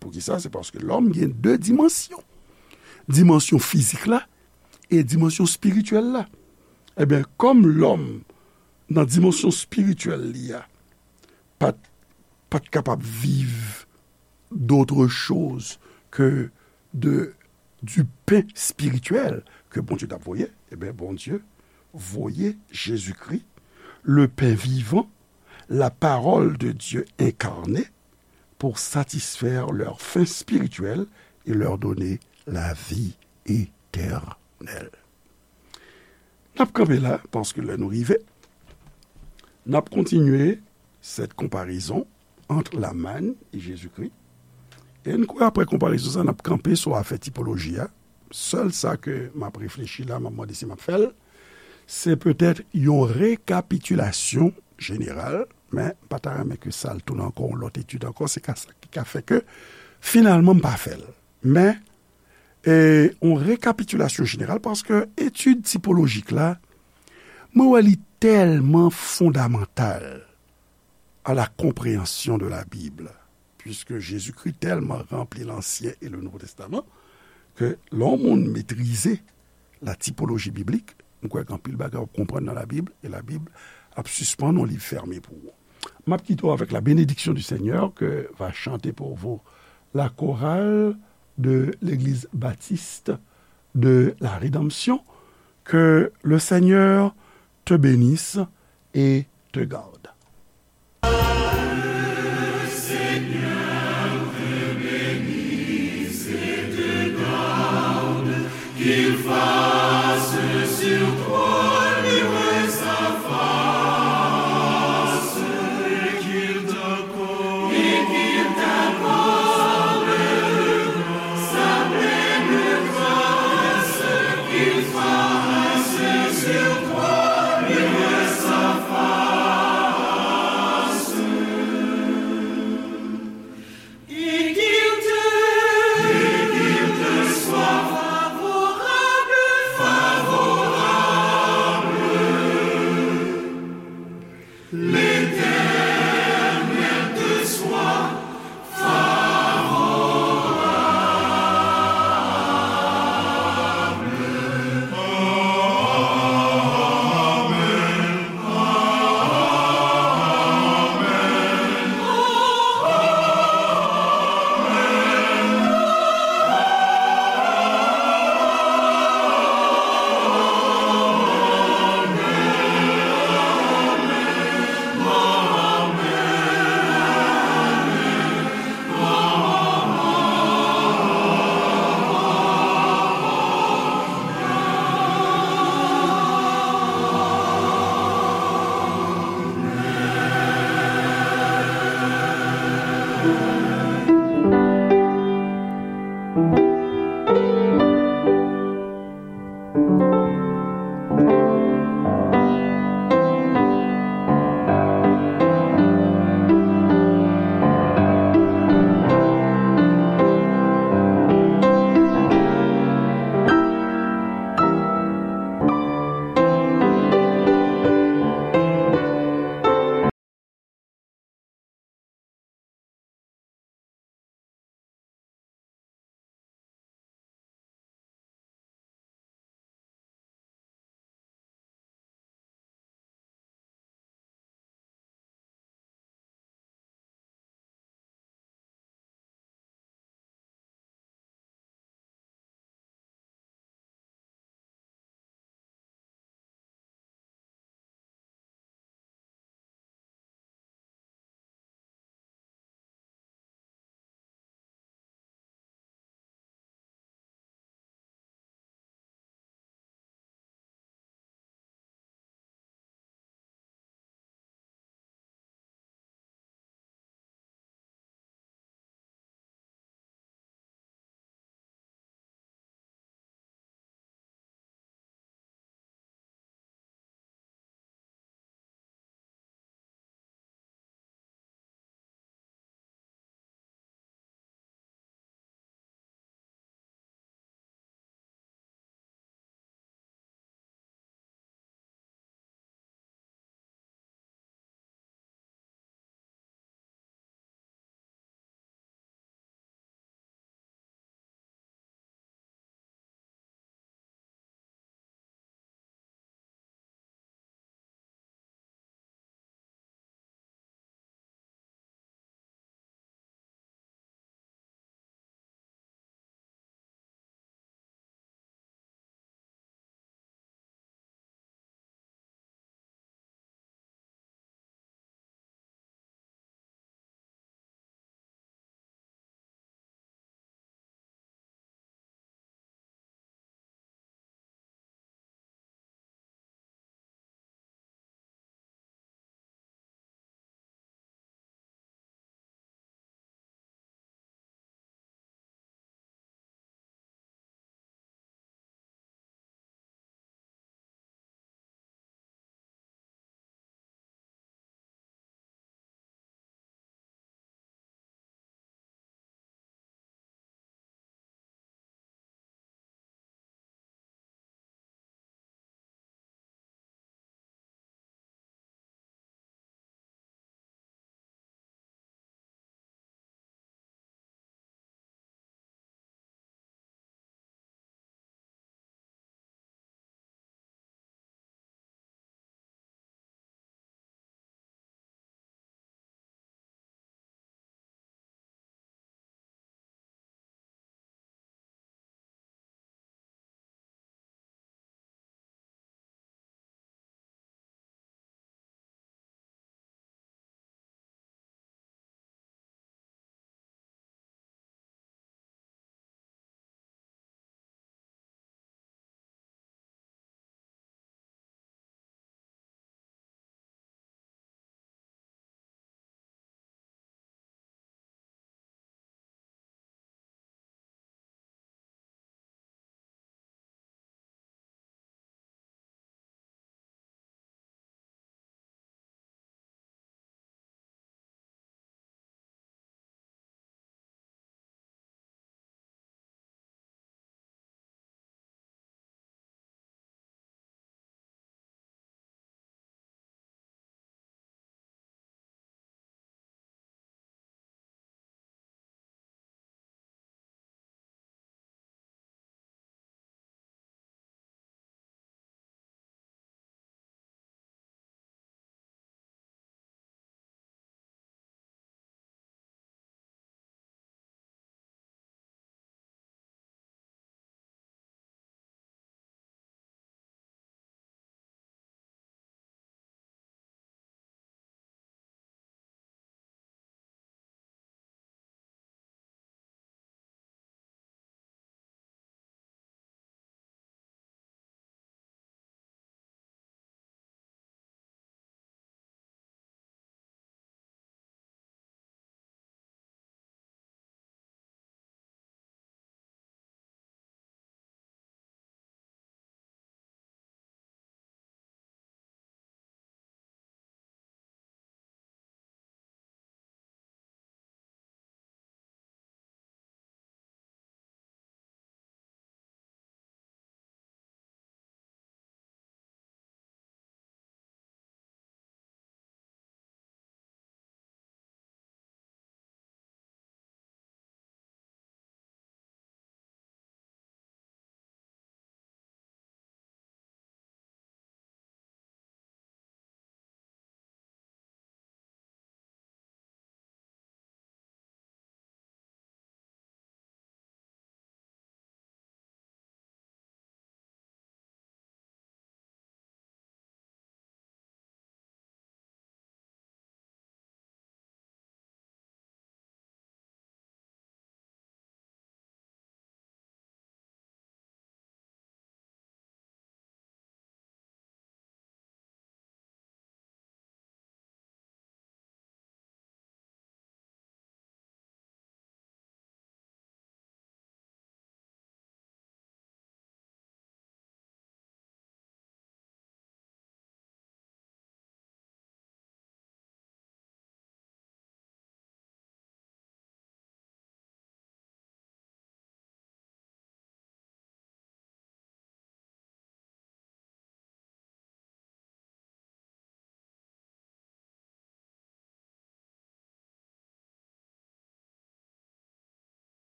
Poukisa? Se paske lòm gen de dimansyon. Dimansyon fizik la e dimansyon espirityèl la. Ebyen, kòm lòm, nan dimansyon espirityèl li a, pa t, pa t kapab viv d'autre chose que de, du pain spirituel ke Bondye t ap voye, ebyen, Bondye voye Jezikri, le pain vivant, la parole de Dieu incarnée, pour satisfaire leur faim spirituelle et leur donner la vie éternelle. N ap kanpe la, paske lè nou rive, n ap kontinye cette comparaison entre la manne et Jésus-Christ. E n kwè apre konparezon sa, n ap kanpe sou afè tipoloji a. Sèl sa ke m ap reflechi la, m ap mande si m ap fè l, se petèt yon rekapitilasyon jeneral, men m pa ta renmen ke sa al tounen ankò yon lòt etid ankò, se ka sa ki ka fè ke finalman m pa fè l. Men, e, yon rekapitilasyon jeneral, paske etid tipolojik la, mwen wè li tèlman fondamantal à la compréhension de la Bible, puisque Jésus-Christ tèlman ranpli Lansyen e le Nouvo Testaman, ke lè yon moun metrize la typologie biblique, m kwè gen anpil bagay w ap konprann nan Labib, e Labib ap sispann yon liv fèmen pou ou. M ap kite w avec la bénédiction du Seigneur que va chanter pour vous la chorale de l'Église Baptiste de la Rédemption. Que le Seigneur te bénisse et te garde.